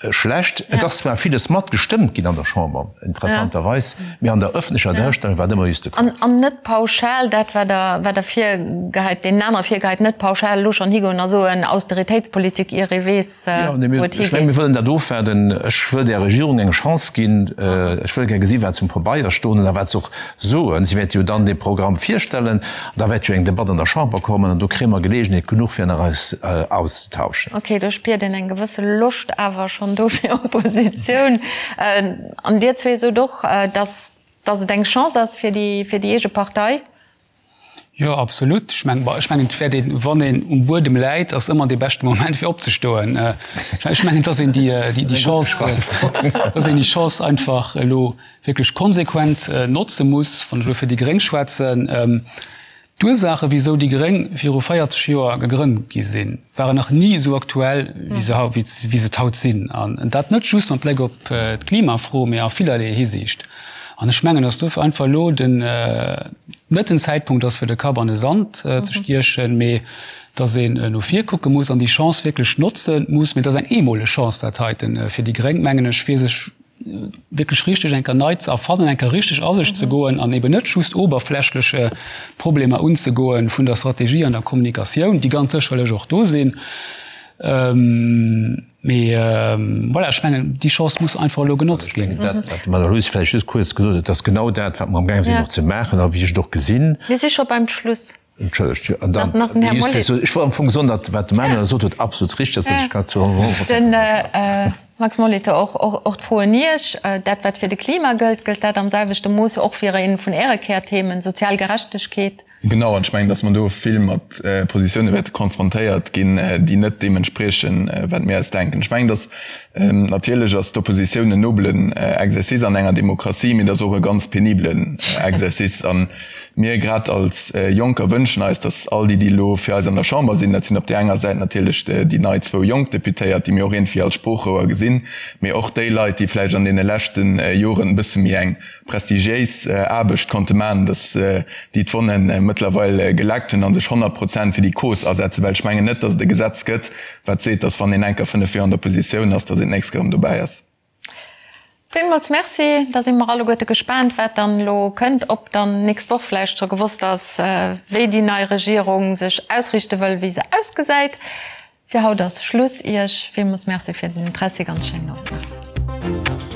[SPEAKER 3] Schlecht. Et ass zwar villes mat gestëmmt ginn an der Chamber, interessanterweis, mee an der ëffentlecher Duerstellung war et ëmmer just de
[SPEAKER 2] Contraire. An net pauschal dat, wat Der, wat Der virgeheit, deenen anere virgeheit, net pauschal elo schonn higoen a soen, Austeritéitspolitik, ier ee weess,
[SPEAKER 3] wou et higeet. Ech mengen, mir wëllen dat ofwaarden. Ech wëll där Regierung eng Chance ginn. Ech wëll gär gesi wat se um Pabeier stoen hunn a wat se och soen. Si wäerte jo dann dee Programm virstellen an da wäert jo eng Debatt an der Chamber kommen an do kréie mer Geleegenheet genuch fir nach eis auszetauschen.
[SPEAKER 2] Ok, do spiert een eng gewësse Loscht awer schonn do fir Oppositioun. An Dir zwee sot och, dass dass et eng Chance ass fir déi fir déi eege Partei.
[SPEAKER 5] Jo, absolut. Ech mengen, ech mengen, et wäert een, wann een um Buedem läit, ass ëmmer dee beschte Moment fir opzestoen. Ech mengen, dass een déi déi Chance, dass een déi Chance einfach elo wierklech konsequent notze muss, wann ech elo fir déi Gréng schwätzen, D'Ursaache wisou déi Gréng viru 40 Joer gegrënnt gi sinn, waren nach ni esou aktuell wéi se wéi se et haut sinn. An dat net just mat Bléck op d'Klimafro, mee a villerlee Hisiicht. An ech mengen, datt dofir einfach elo den net den Zäitpunkt ass fir de Kapp an de Sand ze stiechen, mee datt een no vir kucke muss an déi Chance wierklech notze muss. Mee et ass eng eemoleg Chance dat heiten fir déi Gréng, mengen ech, fir sech wierklech richteg eng Kéier nei ze erfannen, eng Kéier richteg a sech ze goen an eben net just oberflächleche Problemer unzegoen vun der Strategie an der Kommunikatioun, déi ganz sécherlech och do sinn. Mee voilà, ech mengen, déi Chance muss einfach elo genotzt ginn.
[SPEAKER 3] Dat, wat d'Madame Aloyse vläicht just kuerz gesot huet, ass genau dat, wat mer amgaang sinn och ze maachen a wéi ech et och gesinn.
[SPEAKER 2] Mir si scho beim Schluss.
[SPEAKER 3] Entschëllegt, jo. An dann, Nach den Här Mollet. Ech wollt am Fong soen, datt wat de Manuel gesot huet, absolut richteg ass, dat ech kann zu 100
[SPEAKER 2] Prozent ënnerschreiwen. Den Max Molitor, och, och, och d'Fro un Iech, Dat, wat fir de Klima gëllt, gëllt dat am selwechte Mooss och fir een vun Äre Kärthemen, sozial Gerechtegkeet?
[SPEAKER 6] Genau, an ech mengen, datt mer do vill mat Positioune wäerte konfrontéiert ginn, déi net deem entspriechen, wat mir eis denken. Ech mengen, datt natierlech ass d'Oppositioun en nobelen Exercice an enger Demokratie, mee et ass och e ganz penibelen Exercice. An Mir grad als Jonker wënschen eis, datt all déi, déi elo fir eis an der Chamber sinn, dat sinn op där enger Säit natierlech déi nei zwou jonk Deputéiert, déi mir och iergendwéi als Sproochrouer gesinn, mee och déi Leit, déi vläicht an deene leschte Joren e bësse méi eng prestigiéis Aarbecht konnte maachen, datt déi d'Wonne mëttlerweil geleckt hunn a sech 100 Prozent fir déi Cause asetzen. Well ech mengen net, datt et e Gesetz gëtt, wat seet, datt wann een enker fënnef Joer an der Oppositioun ass, datt een d'nächst Kéier erëm dobäi ass.
[SPEAKER 2] Villmools Merci. Da si mer alleguerte gespaant, wat dann elo kënnt, ob dann nächst Woch vläicht scho gewosst ass, wéi déi nei Regierung sech ausriichte wëll, wéi se ausgesäit. Fir haut ass Schluss. Iech villmools Merci fir den Interessi. Ganz schéinen Owend nach.